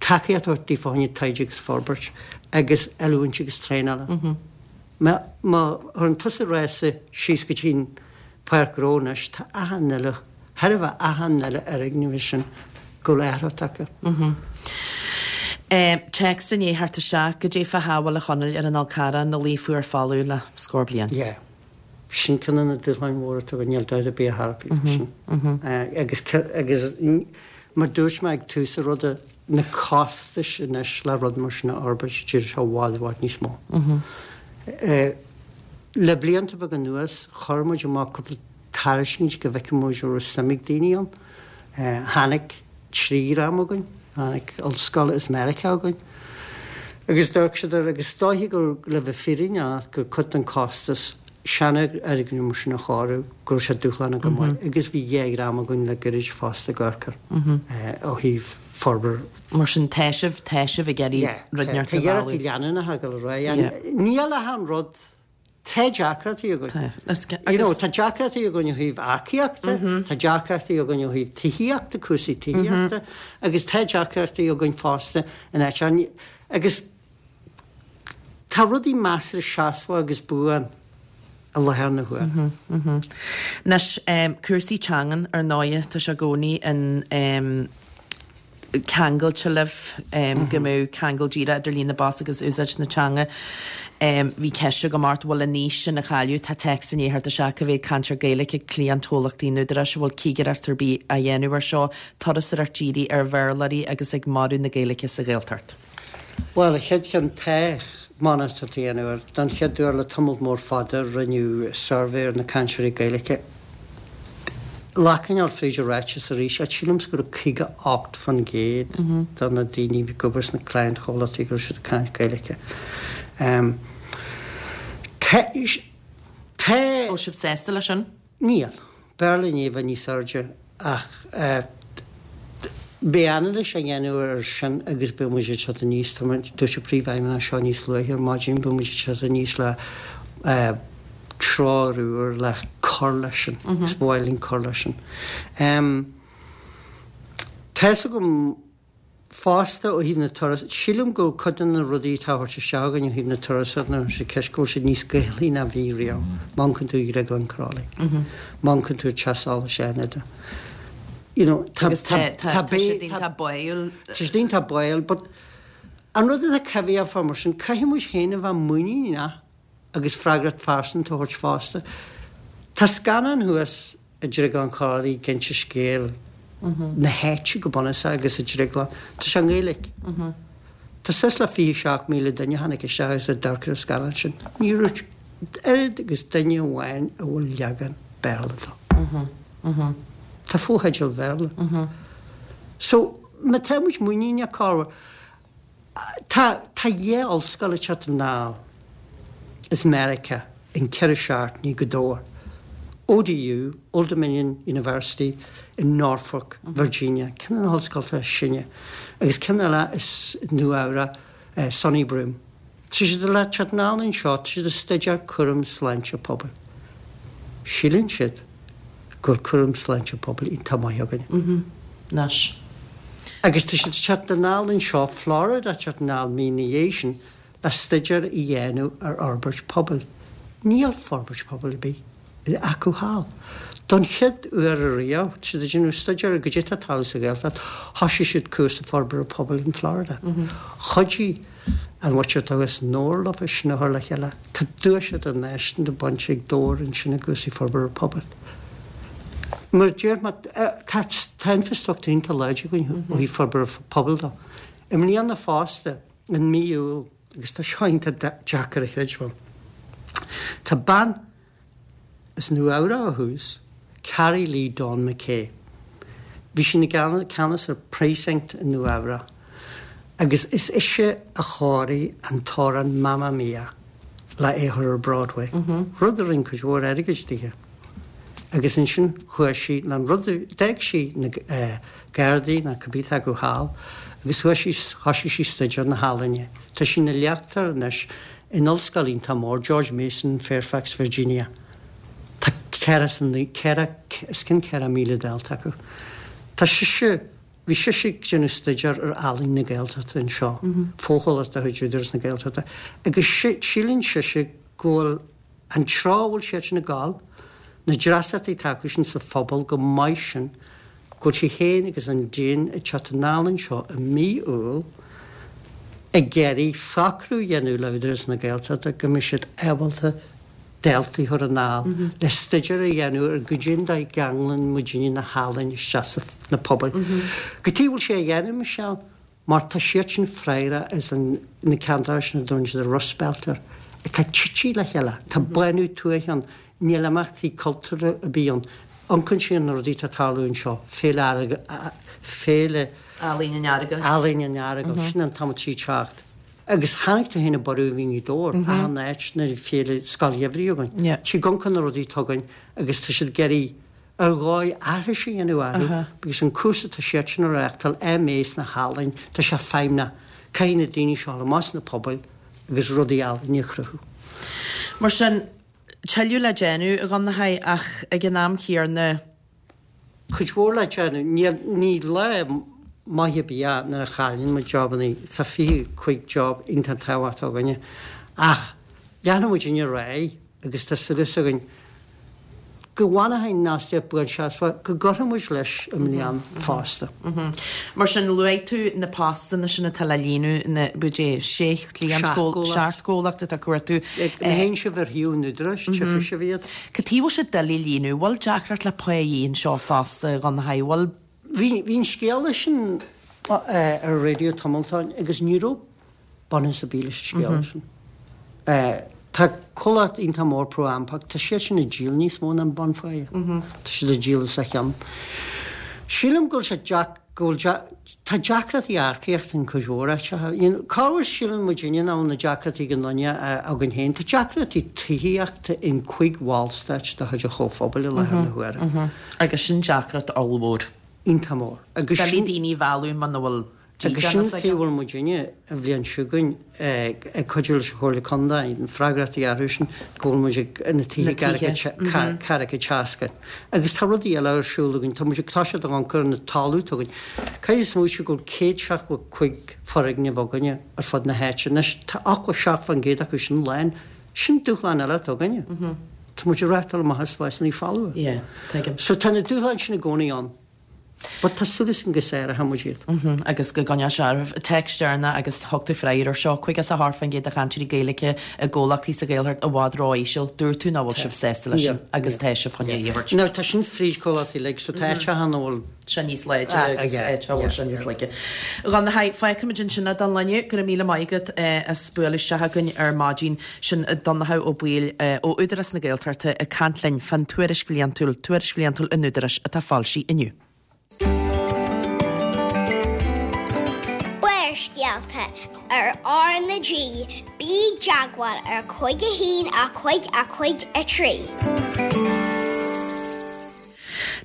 tacaíocht a thabhairt daofa fá choinne taighde agus forbairt agus oiliúint agus traenála. Má chuireann tusa rása síos go dtí an Páirc Ghnó anois, tá achan uile chóir a bheith achan uile fhoirgneamh sin go bhfuil athrú tagtha. Téacs i ndiaidh theacht isteach, Goidé fá shábháil a Chonaill ar an Fhál Carrach ina luí fuar folamh le scór bliain. Yeah. Sin ceann de na dúshláin mhóra atá againn, níl dabht ar bith ar bith faoi sin. Agus, agus mar dúirt mé ag tús an ruda, na costais anois le rud mar sin a fhorbairt, d'éirigh sé i bhfad, i bhfad níos mó. Le blianta beaga anuas, chuir muid amach cúpla tairiscint go bhfeicfeadh muid an raibh suim ag daoine ann. Tháinig trí dhream chugainn, tháinig ollscoil as Meiriceá chugainn agus d'amharc siad air agus is dóiche gur, le bheith fírinneach, gur cuid den costas seanfhoirgneamh mar sin a chóiriú, go raibh sé dúshlánach go maith agus bhí dhá dhream againn le gairid fosta ag amharc air ó thaobh forbairt. Mar sin tá sibh, tá sibh ag iarraidh rud inteacht a mhealladh. Tá iarrachtaí leanúnacha ag dul ar aghaidh. Níl ach an rud Tá deacrachtaí againn. You know, tá deacrachtaí againn ó thaobh earcaíochta, tá deacrachtaí againn ó thaobh tithíochta, cúrsaí tithíochta, agus tá deacrachtaí againn fosta in áit, agus tá rudaí measartha seasmhach agus buan i láthair na huaire. Anois, cúrsaí teangan, ar ndóighe, tá sé i gcónaí in ceangailte libh, go mbeadh ceangal díreach idir líon na bpost agus úsáid na teanga. Bhí ceist agam ort, bhfuil an fhís sin á cailleadh? Tá téacs i ndiaidh theacht isteach cá mhéad cainteoir Gaeilge ag cliantchomhlachtaí an Údaráis, an bhfuil cigireacht ar bith á dhéanamh ar seo, turasóireacht dírithe ar Bhéarlóirí agus ag marú na Gaeilge sa Ghaeltacht? Bhuel, an chéad cheann, tá monatóireacht á dhéanamh air. Don chéad uair le tamall mór fada rinneadh suirbhé ar na cainteoirí Gaeilge. Glacann fríd an ráiteas arís, ach sílimse go raibh 58% de na daoine a bhí ag obair sna cliantchomhlachtaí go raibh siad ag caint Gaeilge. Tá. Bhfuil sibh sásta leis sin? Níl. B'fhearr linn é a bheith níos airde ach beidh anailís á dhéanamh air sin agus beidh muid ag teacht aníos, tá muid, dúirt an Príomhfheidhmeannach seo níos luaithe ar maidin, beidh muid ag teacht aníos le treoir úr le cur leis sin agus ba mhaith linn cur leis sin. Tá's agam fosta ó thaobh na turas, sílim go bhfuil cuid de na rudaí atá á thabhairt isteach againn ó thaobh na turasóireachta nuair atá sé ceist go bhfuil siad níos Gaelaí ná bhí riamh. Má amharcann tú ar Dhrioglann Crolly, má amharcann tú ar Teach Solais Fhánada, you know, tá, Agus tá, tá, tá tá siad iontach báúil. Tá siad iontach báúil, but an rud atá coimhthíoch fá mar sin, caithfidh muid féin a bheith muiníneach agus freagracht phearsanta a thabhairt fosta. Tá scannán thuas i Drioglann Chroithlí ag inse scéal na háite go bunúsach agus an drioglann. Tá sé i nGaeilge. Tá suas le 27,000 duine a tháinig isteach agus a d'amharc ar an scannán sin. Ní raibh oiread agus duine amháin a bhfuil leagan Béarla dó. Tá fotheidil Bhéarla. So, má tá muid muiníneach, cá bhfuil. Tá tá dhá ollscoil ag teacht anall as Meiriceá in 4 seachtainí go Dobhar. ODU, Old Dominion University in Norfolk, Virginia, ceann de na hollscoltacha is sine, agus ceann eile as Nua Eabhrac, SUNY Broome. Tá siad le teacht anall anseo, tá siad ag staidéar cúram sláinte pobail. Síleann siad go bhfuil cúram sláinte pobail iontach maith againne. Anois. Agus tá siad ag teacht anall anseo, Florida ag teacht anall mí ina dhiaidh sin le staidéar a dhéanamh ar fhorbairt pobail. Níl forbairt pobail ar bith acu thall. Don chéad uair ariamh, tá siad ag déanamh staidéar ar goidé atá ag tarlú sa Ghaeltacht, thoisigh siad cúrsa forbartha pobail in Florida. Chuidigh an mhuintir atá thuas i nDobhar leofa sin a chur le chéile. Tá duais idirnáisiúnta bainte ag Dobhar ansin i gcúrsaí forbartha pobail. Mar a deir mé, tá tá infrastruchtúr iontach láidir againn ó thaobh forbartha pobail de. I mbliana fosta, in mí Iúil, agus tá seo iontach deacair a chreidbheáil, tá bean As Nua Eabhrac ó thús, Carrie Lee Dawn McKay. Bhí sí ina ceannas ar Precinct i Nua Eabhrac agus is ise a chóirigh an t-amhrán Mamma Mia le é a chur ar Broadway, rud a rinne cuid mhór airgid dithe. Agus ansin chuaigh sí le an rud, d'fhág sí na Gardaí nó cibé atá acu thall agus chuaigh sí, thoisigh sí staidéar na healaíne. Tá sí ina léachtóir anois In ollscoil iontach mór, George Mason, Fairfax, Virginia, tá 4, os cionn 4,000 dalta acu. Tá sise, bhí sise ag déanamh staidéar ar ealaín na Gaeltachta anseo, fochomhlacht de chuid Údarás na Gaeltachta, agus síleann sise go bhfuil an treo a bhfuil siad sin ag gabháil, na dreasachtaí atá acu sin sa phobal chomh maith sin, go bhfuil sí féin agus an Déan ag teacht anall anseo i mí Iúil ag iarraidh socrú a dhéanamh le Údarás na Gaeltachta go mbeidh siad ábalta daltaí a chur anall le staidéar a dhéanamh ar goidé an dóigh a gceanglann muidinne na healaín isteach sna pobail. Cad chuige a bhfuil sé á dhéanamh, Michelle? Mar tá siad sin freagrach as an, na ceantair sin a dtugann siad an Rust Belt air, atá tite le chéile. Tá bánú tuaithe ann, níl imeachtaí cultúrtha ar bith ann. Amharcann siad ar na rudaí atá ag tarlú anseo, Féile Earagail, Féile. Ealaíon an Earagail. Ealaíon an Earagail, sin an t-am atá sí ag teacht. Agus chonaic tú féin an borradh a bhí i nGaoth Dobhair, achan áit nuair a bhí féile Scoil Gheimhridh againn. Tá siad ag amharc ar na rudaí atá againn agus tá siad ag iarraidh ar dhóigh aithris a dhéanamh orthu agus an cúrsa atá siad sin a reáchtáil, MA sna healaín, tá sé feidhmeach. Caithfidh na daoine seo dul amach sna pobail agus rudaí ealaíne a chruthú. Mar sin, tuilleadh le déanamh, a Dhonnchaidh, ach ag an am chéanna. Cuid mhór le déanamh. Ní lá maith ar bith é nuair a chailleann muid jobannaí. Tá 25 job iontach tábhachtach againne. Ach leanfaidh muidinne ar aghaidh agus tá súil againn go bhfanfaidh an fhostaíocht buanseasmhach, go gcuirfidh muid leis i mbliana fosta. Mar sin, luaigh tú na postanna sin atá le líonadh, na, b'fhéidir, sé chliant, seacht gcomhlacht atá ag cuartú. Má théann sibh ar shuíomh an Údaráis, tchífidh sibh iad. Cad chuige a bhfuil sé doiligh líonadh? Bhfuil deacracht le pá anseo fosta, a Dhonnchaidh? Bhfuil? Bhí an scéala sin ar an raidió tamall ó shin agus ní raibh bunús ar bith leis an scéala sin. Tá comhlacht iontach mór ProAmpac, tá siad sin ag díol níos mó ná an bunpháighe. Tá siad ag díol os a chionn. Sílim go bhfuil sé deac, go bhfuil deac, tá deacrachtaí earcaíochta in cuid mhór áiteacha. You know, corruair síleann muidinne nach bhfuil na deacrachtaí ag an nduine againn féin. Tá deacrachtaí tithíochta in cuig bhallstáit de chuid an Chomhphobail i láthair na huaire. Agus sin deacracht ollmhór. Iontach mór. Agus sin. Doiligh daoine a mhealladh muna bhfuil. Agus sin an tuige a bhfuil muidinne, an bhliain seo chugainn, ag cuidiú leis an Chomhairle Contae, na freagrachtaí a athrú sin, go bhfuil muid ag na tithe ceathracha seasca. Agus tá rudaí eile ar siúl againn, tá muid ag toiseacht ag amharc ar an talamh atá againn. Caithfidh smaoitiú go bhfuil 175 foirgneamh againne ar fud na háite. Anois, tá 87% acu sin lán. Sin dúshlán eile atá againne. Tá muid ag reáchtáil amach as spásanna folmha. So tá na dúshláin sin i gcónaí ann. But tá súil againn go sáróidh muid iad. Agus go gcoinneoidh sé oraibh. Téacs deireanach agus thug tú freagra ar seo, 58% de chainteoirí Gaeilge i gcomhlachtaí sa Ghaeltacht i bhfad ró-íseal. Dúirt tú nach bhfuil sibh sásta leis sin agus tá sibh chun é a thabhairt. Now tá sin fríd comhlachtaí uilig so tá áiteacha ina bhfuil. sé níos láidre agus áiteacha a bhfuil sé níos laige. A Dhonncha, fágfaimid ansin é don lá inniu. Go raibh míle maith agat as bualadh isteach chugainn ar maidin. Sin Donnchadh Ó Baoill ó Údarás na Gaeltachta ag caint linn fán tuairisc bhliantúil, Tuairisc Bhliantúil an Údaráis atá foilsithe inniu. Barrscéalta ar R na G, bí i dteagmháil ar 5 1 5 5 3.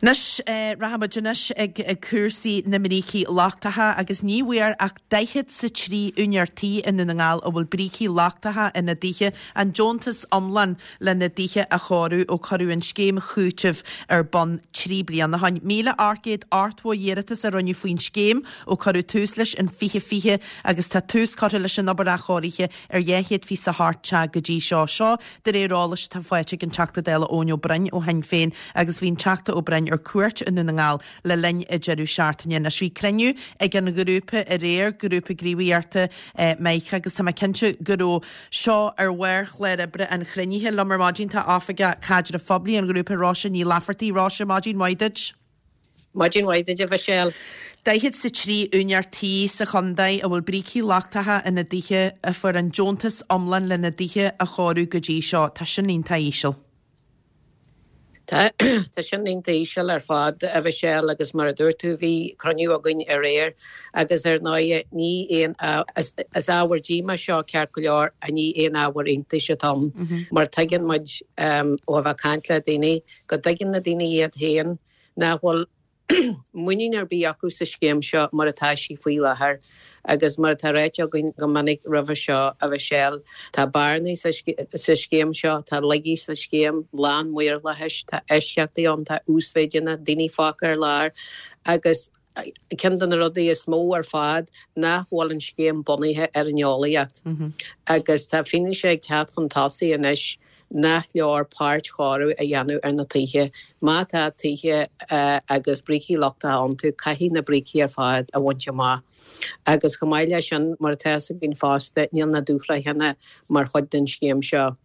Anois, rachaimid anois ag cúrsaí na mbrící lochtacha agus ní bhfuair ach daichead 's a 3 úinéir tí i nDún na nGall a bhfuil brící lochtacha ina dtithe an deontas iomlán lena dtithe a chóiriú ó cuireadh an scéim chúitimh ar bun 3 bliana ó shin. 1,880 iarratas a rinneadh faoin scéim ó cuireadh tús leis in 2020 agus tá tús curtha leis an obair athchóirithe ar 228 teach go dtí seo. Seo de réir eolais atá faighte ag an Teachta Dála Eoin Ó Broin ó Shinn Féin agus bhí an Teachta Ó Broin ar cuairt i nDún na nGall le linn an deireadh seachtaine. Anois bhí cruinniú ag an ghrúpa aréir, Grúpa Gníomhaíochta Meic agus tá mé cinnte go raibh seo ar bharr chlár oibre an chruinnithe. Liom ar maidin tá Oifigeach Caidrimh Phoiblí an ghrúpa, Róise Ní Laifeartaigh. Róise, maidin mhaith duit. Maidin mhaith duit, a Mhichelle. Daichead 's a 3 úinéir tí sa chontae a bhfuil brící lochtacha ina dtithe a fuair an deontas iomlán lena dtithe a chóiriú go dtí seo. Tá sin iontach íseal. Tá, tá sin iontach íseal ar fad, a Mhichelle, agus mar a dúirt tú, bhí cruinniú againn aréir agus ar ndóighe ní aon, is ábhar díomá seo ceart go leor, ach ní aon ábhar iontais atá ann mar tuigeann muid ó a bheith ag caint le daoine go dtuigeann na daoine iad féin nach bhfuil muinín ar bith acu sa scéim seo mar atá sí faoi láthair agus mar atá ráite againn go minic roimhe seo, a Mhichelle, tá bearnaí sa scéim seo, tá laigí sa scéim, lán maorlathais, tá eisceachtaí ann, tá uasmhéideanna, daoine fágtha ar lár agus ceann de na rudaí is mó ar fad nach bhfuil an scéim bunaithe ar an eolaíocht agus tá fianaise ag teacht chun tosaigh anois nach leor páirt-chóiriú a dhéanamh ar na tithe. Má tá tithe agus brící lochtacha iontu, caithfidh na brící ar fad a bhaint amach. Agus chomh maith leis sin, mar atá fhios againn fosta, níl na dúshraitheanna mar chuid den scéim seo.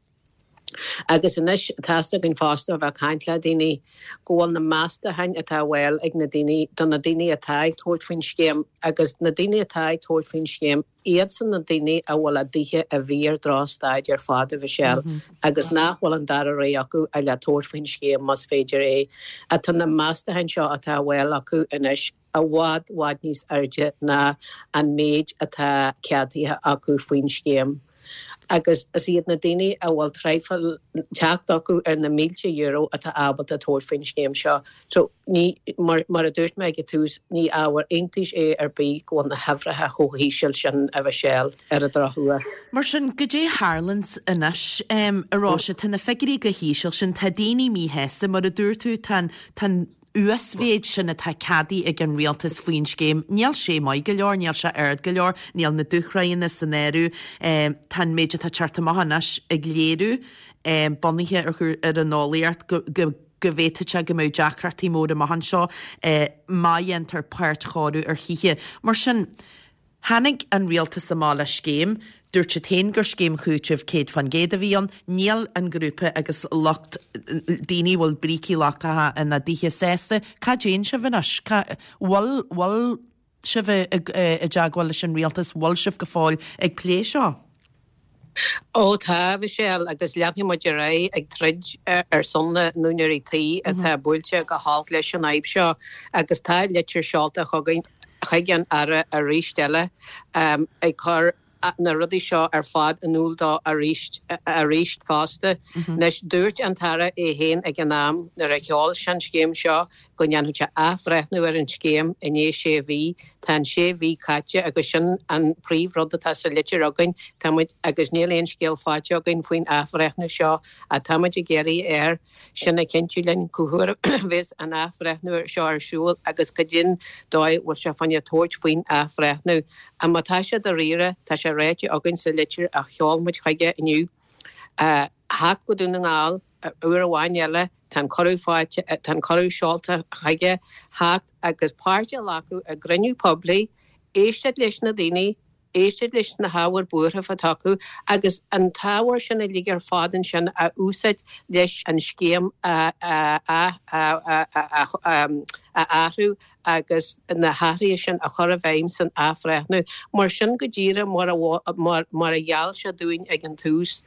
Agus anois, tá fhios againn fosta ó bheith ag caint le daoine, go bhfuil na meastacháin atá á bhfáil ag na daoine, do na daoine atá ag tabhairt faoin scéim, agus na daoine atá ag tabhairt faoin scéim, Iadsan na daoine a bhfuil a dtithe i bhfíor-dhrochstaid ar fad, a Mhichelle, agus nach bhfuil an dara rogha acu ach le tabhairt faoin scéim más féidir é. Tá na meastacháin seo atá á bhfáil acu anois i bhfad, bhfad níos airde ná an méid atá ceadaithe acu faoin scéim. Agus is iad na daoine a bhfuil traidhfil teacht acu ar na mílte euro atá ábalta tabhairt faoin scéim seo. So, ní, mar, mar a dúirt mé ag an tús, ní ábhar iontais é ar bith go bhfuil na huimhreacha chomh híseal sin, a Mhichelle, ar an drochuair. Mar sin, goidé a tharlaíonns anois, a Róise, tá na figiúirí chomh híseal sin, tá daoine míshásta, mar a dúirt tú, tá an, tá an uasmhéid sin atá ceadaithe ag an rialtas faoin scéim, níl sé maith go leor, níl sé ard go leor, níl na dúshraitheanna san áireamh, tá an méid atá ag teacht amach anois ag léiriú, bunaithe ar, ar an eolaíocht, go, go, go bhféadfadh sé go mbeadh deacrachtaí móra amach anseo má dhéantar páirt-chóiriú ar thithe. Mar sin, tháinig an rialtas amach le scéim, dúirt siad féin gur scéim chúitimh 100% a bhí ann, níl an grúpa agus lucht daoine a bhfuil brící lochtacha ina dtithe sásta. Cá dtéann sibh anois? Cá bhfuil, bhfuil sibh i dteagmháil leis an rialtas, bhfuil sibh go fóill ag plé seo? Ó tá, a Mhichelle, agus leanfaidh muid ar aghaidh ag troid ar son na n-úinéirí tí atá buailte go holc leis an fhadhb seo agus tá litir seolta chugainn chuig an Aire arís eile ag cur. na rudaí seo ar fad in iúl dó arís arís fosta. Anois, dúirt an tAire é féin ag an am nuair a sheol sé an scéim seo go ndéanfadh sé athbhreithniú ar an scéim i ndiaidh sé mhí. Tá an sé mhí caite agus sin an príomhrud atá sa litir againn. Tá muid, agus níl aon scéal faighte againn faoin athbhreithniú seo ach tá muid ag iarraidh air sin a chinntiú linn cá huair a bheas an athbhreithniú seo ar siúl agus goidé'n dóigh a bhfuil sé fá choinne tabhairt faoin athbhreithniú. Ach má tá sé dáiríre, tá sé ráite againn sa litir a sheol muid chuige inniu, theacht go Dún na nGall uair amháin eile, tá an cuireadh faighte, tá an cuireadh seolta chuige, theacht agus páirt a ghlacadh i gcruinniú poiblí, éisteacht leis na daoine, éisteacht leis na hábhair buairimh atá acu agus an t-ábhar sin uilig ar fad ansin a úsáid leis an scéim a athrú agus na hathruithe sin a chur i bhfeidhm san athbhreithniú. Mar sin go díreach mar a gheall sé dúinn ag an tús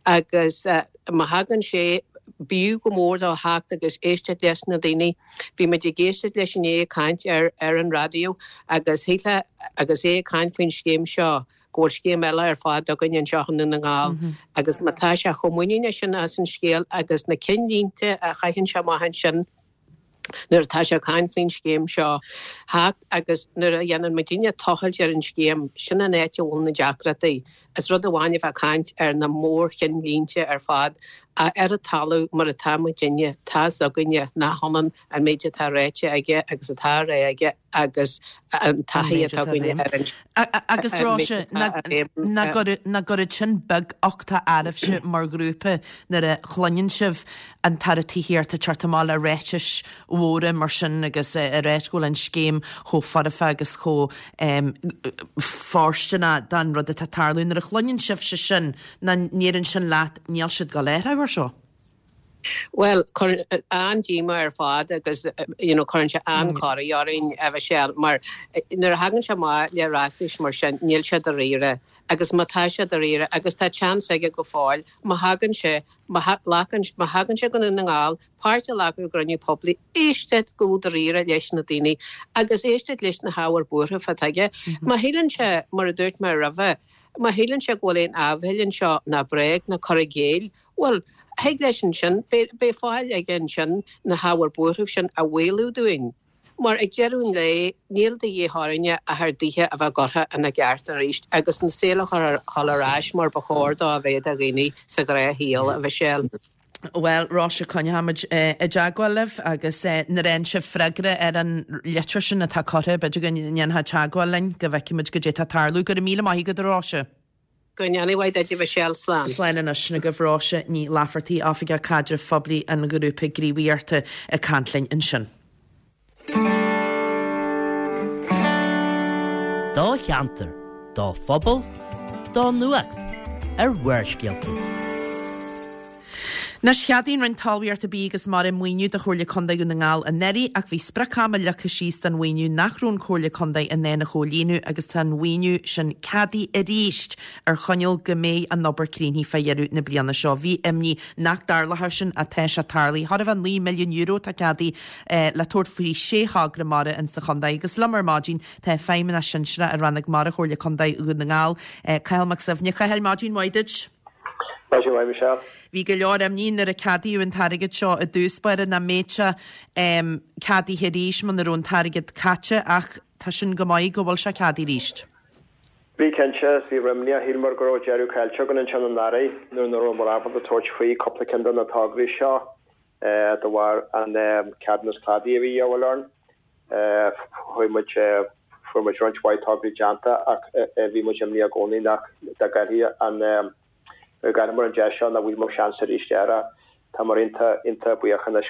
agus má thagann sé, b'fhiú go mór dó theacht agus éisteacht leis na daoine. Bhí muid ag éisteacht leis inné ag caint ar ar an raidió agus shílfeá agus é ag caint faoin scéim seo go bhfuil scéim eile ar fad againn anseo i nDún na nGall agus má tá sé chomh muiníneach sin as an scéal agus na cinnlínte a chaitheann sé amach ansin nuair atá sé ag caint faoin scéim seo theacht agus nuair a dhéanann muidinne tochailt ar an scéim, sin an áit a bhfuil na deacrachtaí. Is rud amháin a bheith ag caint ar na mórchinnlínte ar fad, ach ar an talamh mar atá muidinne, tá's againne nach ionann an méid atá ráite aige agus atá á rá aige agus an taithí atá againne ar an Agus Róise, nach gcuireann sin beaguchtach oraibhse mar ghrúpa nuair a chluineann sibh an tAire Tithíochta ag teacht amach le ráitis mhóra mar sin agus ag ráit go bhfuil an scéim chomh foirfe agus chomh fóirsteanach don rud atá ag tarlú. Nuair a chluineann sibhse sin, nach ndeireann sin leat níl siad ag dul a athrú air seo? Bhuel, cuireann an-díomá ar fad agus you know cuireann sé an-chorraí orainn, a Mhichelle, mar nuair a thagann sé amach le ráitis mar sin, níl sé dáiríre. Agus má tá sé dáiríre, agus tá chance aige go fóill, má thagann sé, má ghlacann, má thagann sé go Dún na nGall, páirt a ghlacadh i gcruinniú poiblí, éisteacht go dáiríre leis na daoine agus éisteacht leis na hábhair buairimh atá aige. Má shíleann sé, mar a dúirt mé roimhe, má shíleann sé go bhfuil aon áibhéil anseo ná bréag ná cur i gcéill, bhuel, thig leis ansin, beidh fáil aige ansin na hábhair buairimh sin a mhaolú dúinn. Mar ag deireadh an lae, níl de dhíth orainne ach ár dtithe a bheith curtha ina gceart arís agus an saol a chur ar ais mar ba chóir dó a bheith do dhaoine sa ghnáthshaol, a Mhichelle. Bhuel, Róise, coinneochaimid i dteagmháil libh agus nuair a fhaigheann sibh freagra ar an litir sin atá curtha, b'fhéidir go ndéanfá teagmháil linn go bhfeicfimid goidé atá ag tarlú. Go raibh míle maith agat, a Róise. Go ndéana mhaith duit, a Mhichelle. Slán. Slán anois. Sin agaibh Róise Ní Laifeartaigh, Oifigeach Caidrimh Phoiblí an Ghrúpa Gníomhaíochta ag caint linn ansin. Do cheantar, do phobal, do nuacht ar Bharrscéalta. Anois, cheadaigh an Roinn Talmhaíochta, Bídh agus Mara maoiniú do Chomhairle Contae Dhún na nGall anuraidh ach bhí sprioc-ama leagtha síos don mhaoiniú nach raibh an Chomhairle Contae in ann a chomhlíonadh agus tá an mhaoiniú sin ceadaithe arís ar choinníoll go mbeidh an obair críochnaithe fá dheireadh na bliana seo. Bhí imní nach dtarlódh sin ach tá sé tarlaithe. Chóir a bheith €9 milliún atá ceadaithe le tabhairt faoi shé thogra mara insa chontae agus liom ar maidin tá Feidhmeannach Sinsearach i Rannóg Mara Chomhairle Contae Dhún na nGall, Cathal Mac Suibhne. Cathal, maidin mhaith duit. Maidin mhaith, Michelle. Bhí go leor imní nuair a ceadaíodh an t-airgead seo i dtús báire nach mbeadh sé ceadaithe arís muna raibh an t-airgead caite ach tá sin go maith go bhfuil sé ceadaithe arís. Bhí cinnte, bhí imní, shíleamar go raibh deireadh caillte againn ansin anuraidh nuair nach rabhamar ábalta tabhairt faoi cúpla ceann de na tograí seo de bharr an ceadúnas cladaigh a bhí a dhíobháil orainn. Chuaigh muid, fuair muid roinnt mhaith tograí déanta ach bhí muid imníoch i gcónaí nach dá gcaillfí an, dá gcaillfeamar an deis seo nach bhfaighfeamar seans arís air. Táimid iontach, iontach buíoch anois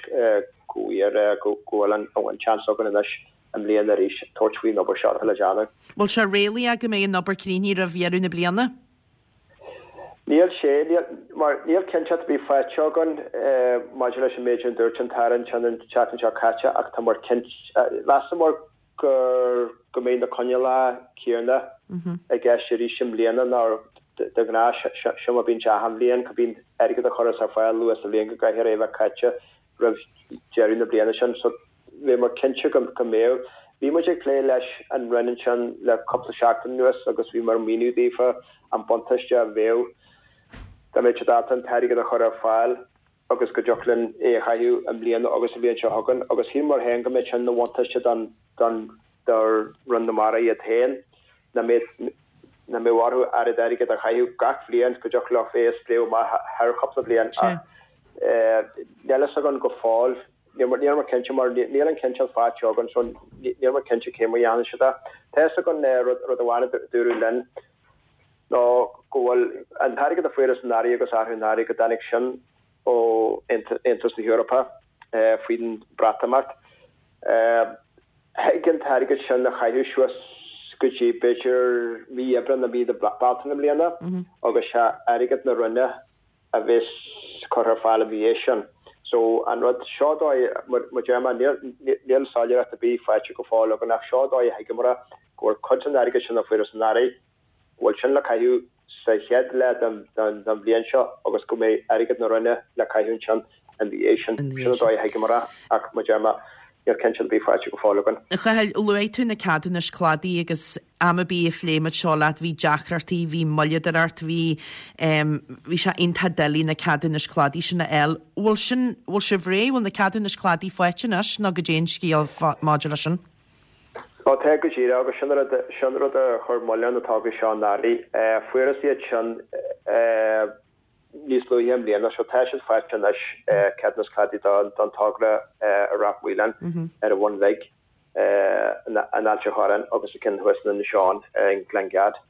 go bhfuair, go bhfuil an seans againn anois i mbliana arís tabhairt faoin obair seo atá le déanamh. Bhfuil sé réalaíoch go mbeidh an obair críochnaithe roimh dheireadh na bliana? Níl sé, níl, mar níl cinnteacht ar bith faighte againn maidir leis an méid a dúirt an tAire ansin an tseachtain seo caite ach tá muid cinnte, mheasamar gur, go mbeidh na coinníollacha céanna i gceist arís i mbliana ná de ghnáth, seo mar a bíonn sé achan bhliain, go mbíonn airgead á chur ar fáil luath sa bhliain go gcaithfear é a bheith caite roimh deireadh na bliana sin. So, bhíomar cinnte go mbeadh. Bhí muid ag plé leis an Roinn ansin le cúpla seachtain anuas agus bhí muid ag míniú daofa an buntáiste a bheadh dá mbeadh siad ábalta an t-airgead a chur ar fáil agus go dtiocfadh linn é a chaitheamh i mbliana agus an bhliain seo chugainn agus shíl muid féin go mbeadh sin ina bhuntáiste don don do Roinn na Mara iad féin nach mbeadh nach mbeadh orthu oiread airgid a chaitheamh gach bhliain go dtiocfadh leo é a spréadh amach thar chúpla bliain ach níl fhios againn go fóill níl níl muid cinnte mar níl an cinnteacht faighte againn so níl muid cinnte cé mar a dhéanfaidh siad é. Tá fhios againn rud rud amháin a dúradh linn ná go bhfuil an t-airgead a fuarthas anuraidh agus arú anuraidh go dtáinig sin ó Aontas na hEorpa faoin Breatimeacht. Thig an t-airgead sin a chaitheamh suas go dtí b'fhéidir mí Aibreán nó mí na Bealtaine i mbliana agus sé airgead na Roinne a bheas curtha ar fáil ina dhiaidh sin. So an rud seo dóigh, mar a deir mé, níl soiléireacht ar bith faighte go fóill againn ach seo dóigh a thuigeamar go bhfuil cuid den airgead sin a fuarthas anuraidh, go bhfuil sin le caitheamh sa chéad leath den bhliain seo agus go mbeidh airgead na Roinne le caitheamh ansin ina dhiaidh sin. Sin an dóigh a thuigeamar é ach mar a deir mé, níl cinnteacht ar bith faighte go fóill againn. A Chathail, luaigh tú na ceadúnais cladaigh agus am ar bith a phléigh muid seo leat, bhí deacrachtaí, bhí moilleadóireacht, bhí, bhí sé iontach doiligh na ceadúnais cladaigh sin a fháil. Bhfuil sin, bhfuil sibh réidh, bhfuil na ceadúnais cladaigh faighte anois nó goidé an scéal maidir leis sin? Ó tá go díreach, agus sin rud, sin rud a chuir moill ar na tograí seo anuraidh. Fuarthas iad sin níos luaithe i mbliana, so tá siad faighte anois, ceadúnas cladaigh don togra i Ráth Maoláin ar an Bhun Bhig, in Ailt an Chorráin agus an ceann thuas in Inis Eoghain, i nGleann Gad.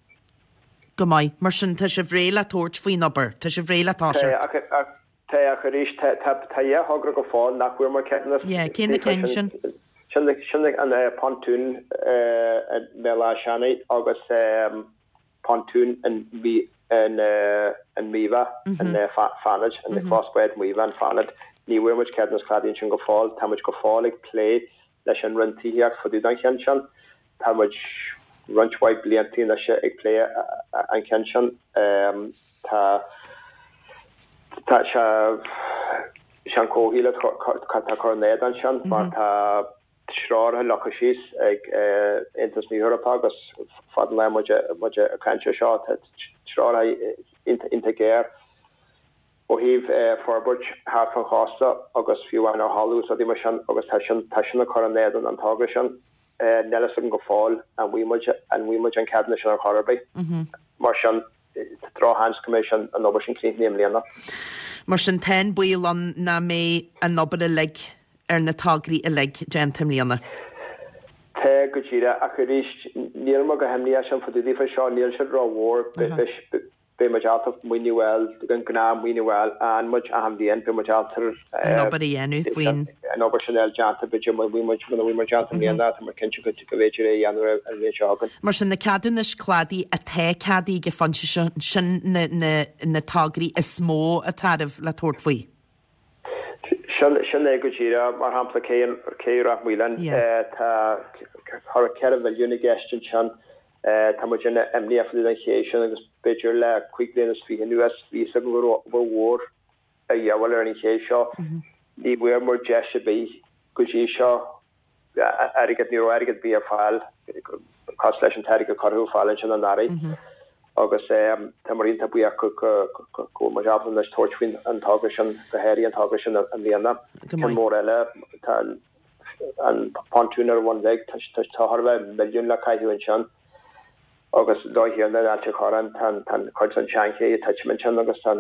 Go maith. Mar sin, tá sibh réidh le tabhairt faoin obair? Tá sibh réidh le toiseacht? Tá, ach Tá, ach arís, tá dhá thogra go fóill nach bhfuair muid ceadúnas. Yeah, cé na cinn sin? Sin an pontún i mBéal Átha Seanaidh agus pontún in Míobha, in Fánaid, in clós báid Mhíobha in Fánaid. Ní bhfuair muid ceadúnas cladaigh ansin go fóill. Tá muid go fóill ag plé leis an Roinn Tithíochta fá dtaobh den cheann sin. Tá muid roinnt mhaith blianta anois ag plé an cheann sin. Tá tá sé sé an comhshaol atá ag cur in éadan sin mar tá treoracha leagtha síos ag Aontas na hEorpa agus fad an lá muid muid ag caint ar seo tá treoracha iontach géar ó thaobh forbairt thart fán chósta agus fiú amháin ar thalamh is rudaí mar sin agus tá sin tá sin ag cur in éadan an togra sin. Níl fhios agam go fóill an bhfaighidh muid an bhfaighidh muid an ceadúnas sin ar chor ar bith. Mar sin tá drochsheans go mbeidh sin an obair sin críochnaithe i mbliana. Mar sin tá an baol ann nach mbeidh an obair uilig ar na tograí uilig déanta i mbliana. Tá, go díreach, ach arís níl mé go himníoch sin fá dtaobh daofa seo, níl siad rómhór. Beidh muid ábalta maoiniú a fháil, an gnáth maoiniú a fháil, a fhaigheann muid achan bhliain, beidh muid ábalta an obair a dhéanamh faoin. an obair sin a fháil déanta, b'fhéidir muna bhfuil muid, muna bhfuil muid déanta i mbliana, tá muid cinnte go bhféidir é a dhéanamh an bhliain seo chugainn. Mar sin, na ceadúnais cladaigh atá ceadaithe ag an phointe seo, sin na, na, na tograí is mó atá oraibh le tabhairt faoi. Sin, sin é go díreach. Mar shampla, cé, cé Ráth Maoláin, tá thar 4 mhilliún i gceist ansin. Tá muid an-imníoch fá dtaobh den ché sin agus b'fhéidir le 25 bliain anuas bhí fhios againn go raibh obair mhór a dhíobháil ar an ché seo. Ní bhfuair muid deis ar bith go dtí seo airgead, ní raibh airgead ar bith ar fáil cosúil leis an t-airgead a cuireadh ar fáil ansin anuraidh agus tá muid iontach buíoch go bhfuil muid ábalta anois tabhairt faoin an togra sin, go háirithe an togra sin i mbliana. Ceann mór eile, tá an An pontún ar an Bhun Bhig, tá chóir a bheith milliún le caitheamh ansin agus an dóigh chéanna in Ailt an Chorráin, tá an cuid den tseanché ag titim ansin agus tá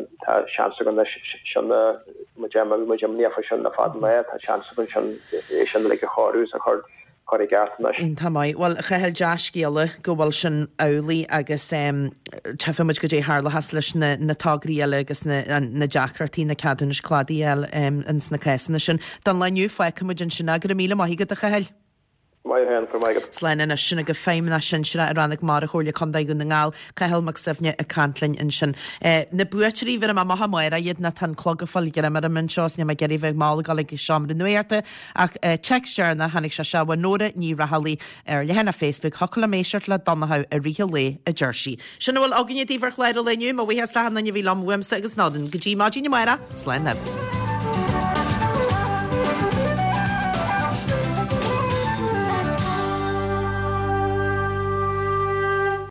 seans againn anois sin a, muid bhí muid imníoch faoi sin le fada an lá, tá seans againn sin é sin uilig a chóiriú is a chur chur i gceart anois. Iontach maith. Bhuel, a Chathail, dea-scéala go bhfuil sin amhlaidh agus tchífidh muid goidé a tharlóchas leis na na tograí eile agus na na deacrachtaí na ceadúnais cladaigh a fháil ins na cásanna sin. Don lá inniu, fágfaidh muid ansin é. Go raibh míle maith agat, a Chathail. Maith thú féin, go raibh maith agat. Slán anois. Sin agaibh Feidhmeannach Sinsearach i Rannóg Mara Chomhairle Contae Dhún na nGall, Cathal Mac Suibhne ag caint linn ansin. Na buaiteoirí, bhéarfaidh mé amach amárach iad nó tá an clog ag fáil greim orm anseo is níl mé ag iarraidh bheith mall ag dul ag seomra nuachta ach téacs deireanach tháinig sé seo ó Nóra Ní Raghallaigh ar leathanach Facebook Thiocfadh liom éisteacht le Donnchadh i rith an lae a deir sí. Sin a bhfuil againne daoibh ar chlár an lae inniu. Mo bhuíochas le achan duine a bhí liom uaimse agus Nóirín. Go dtí maidin amárach, slán libh.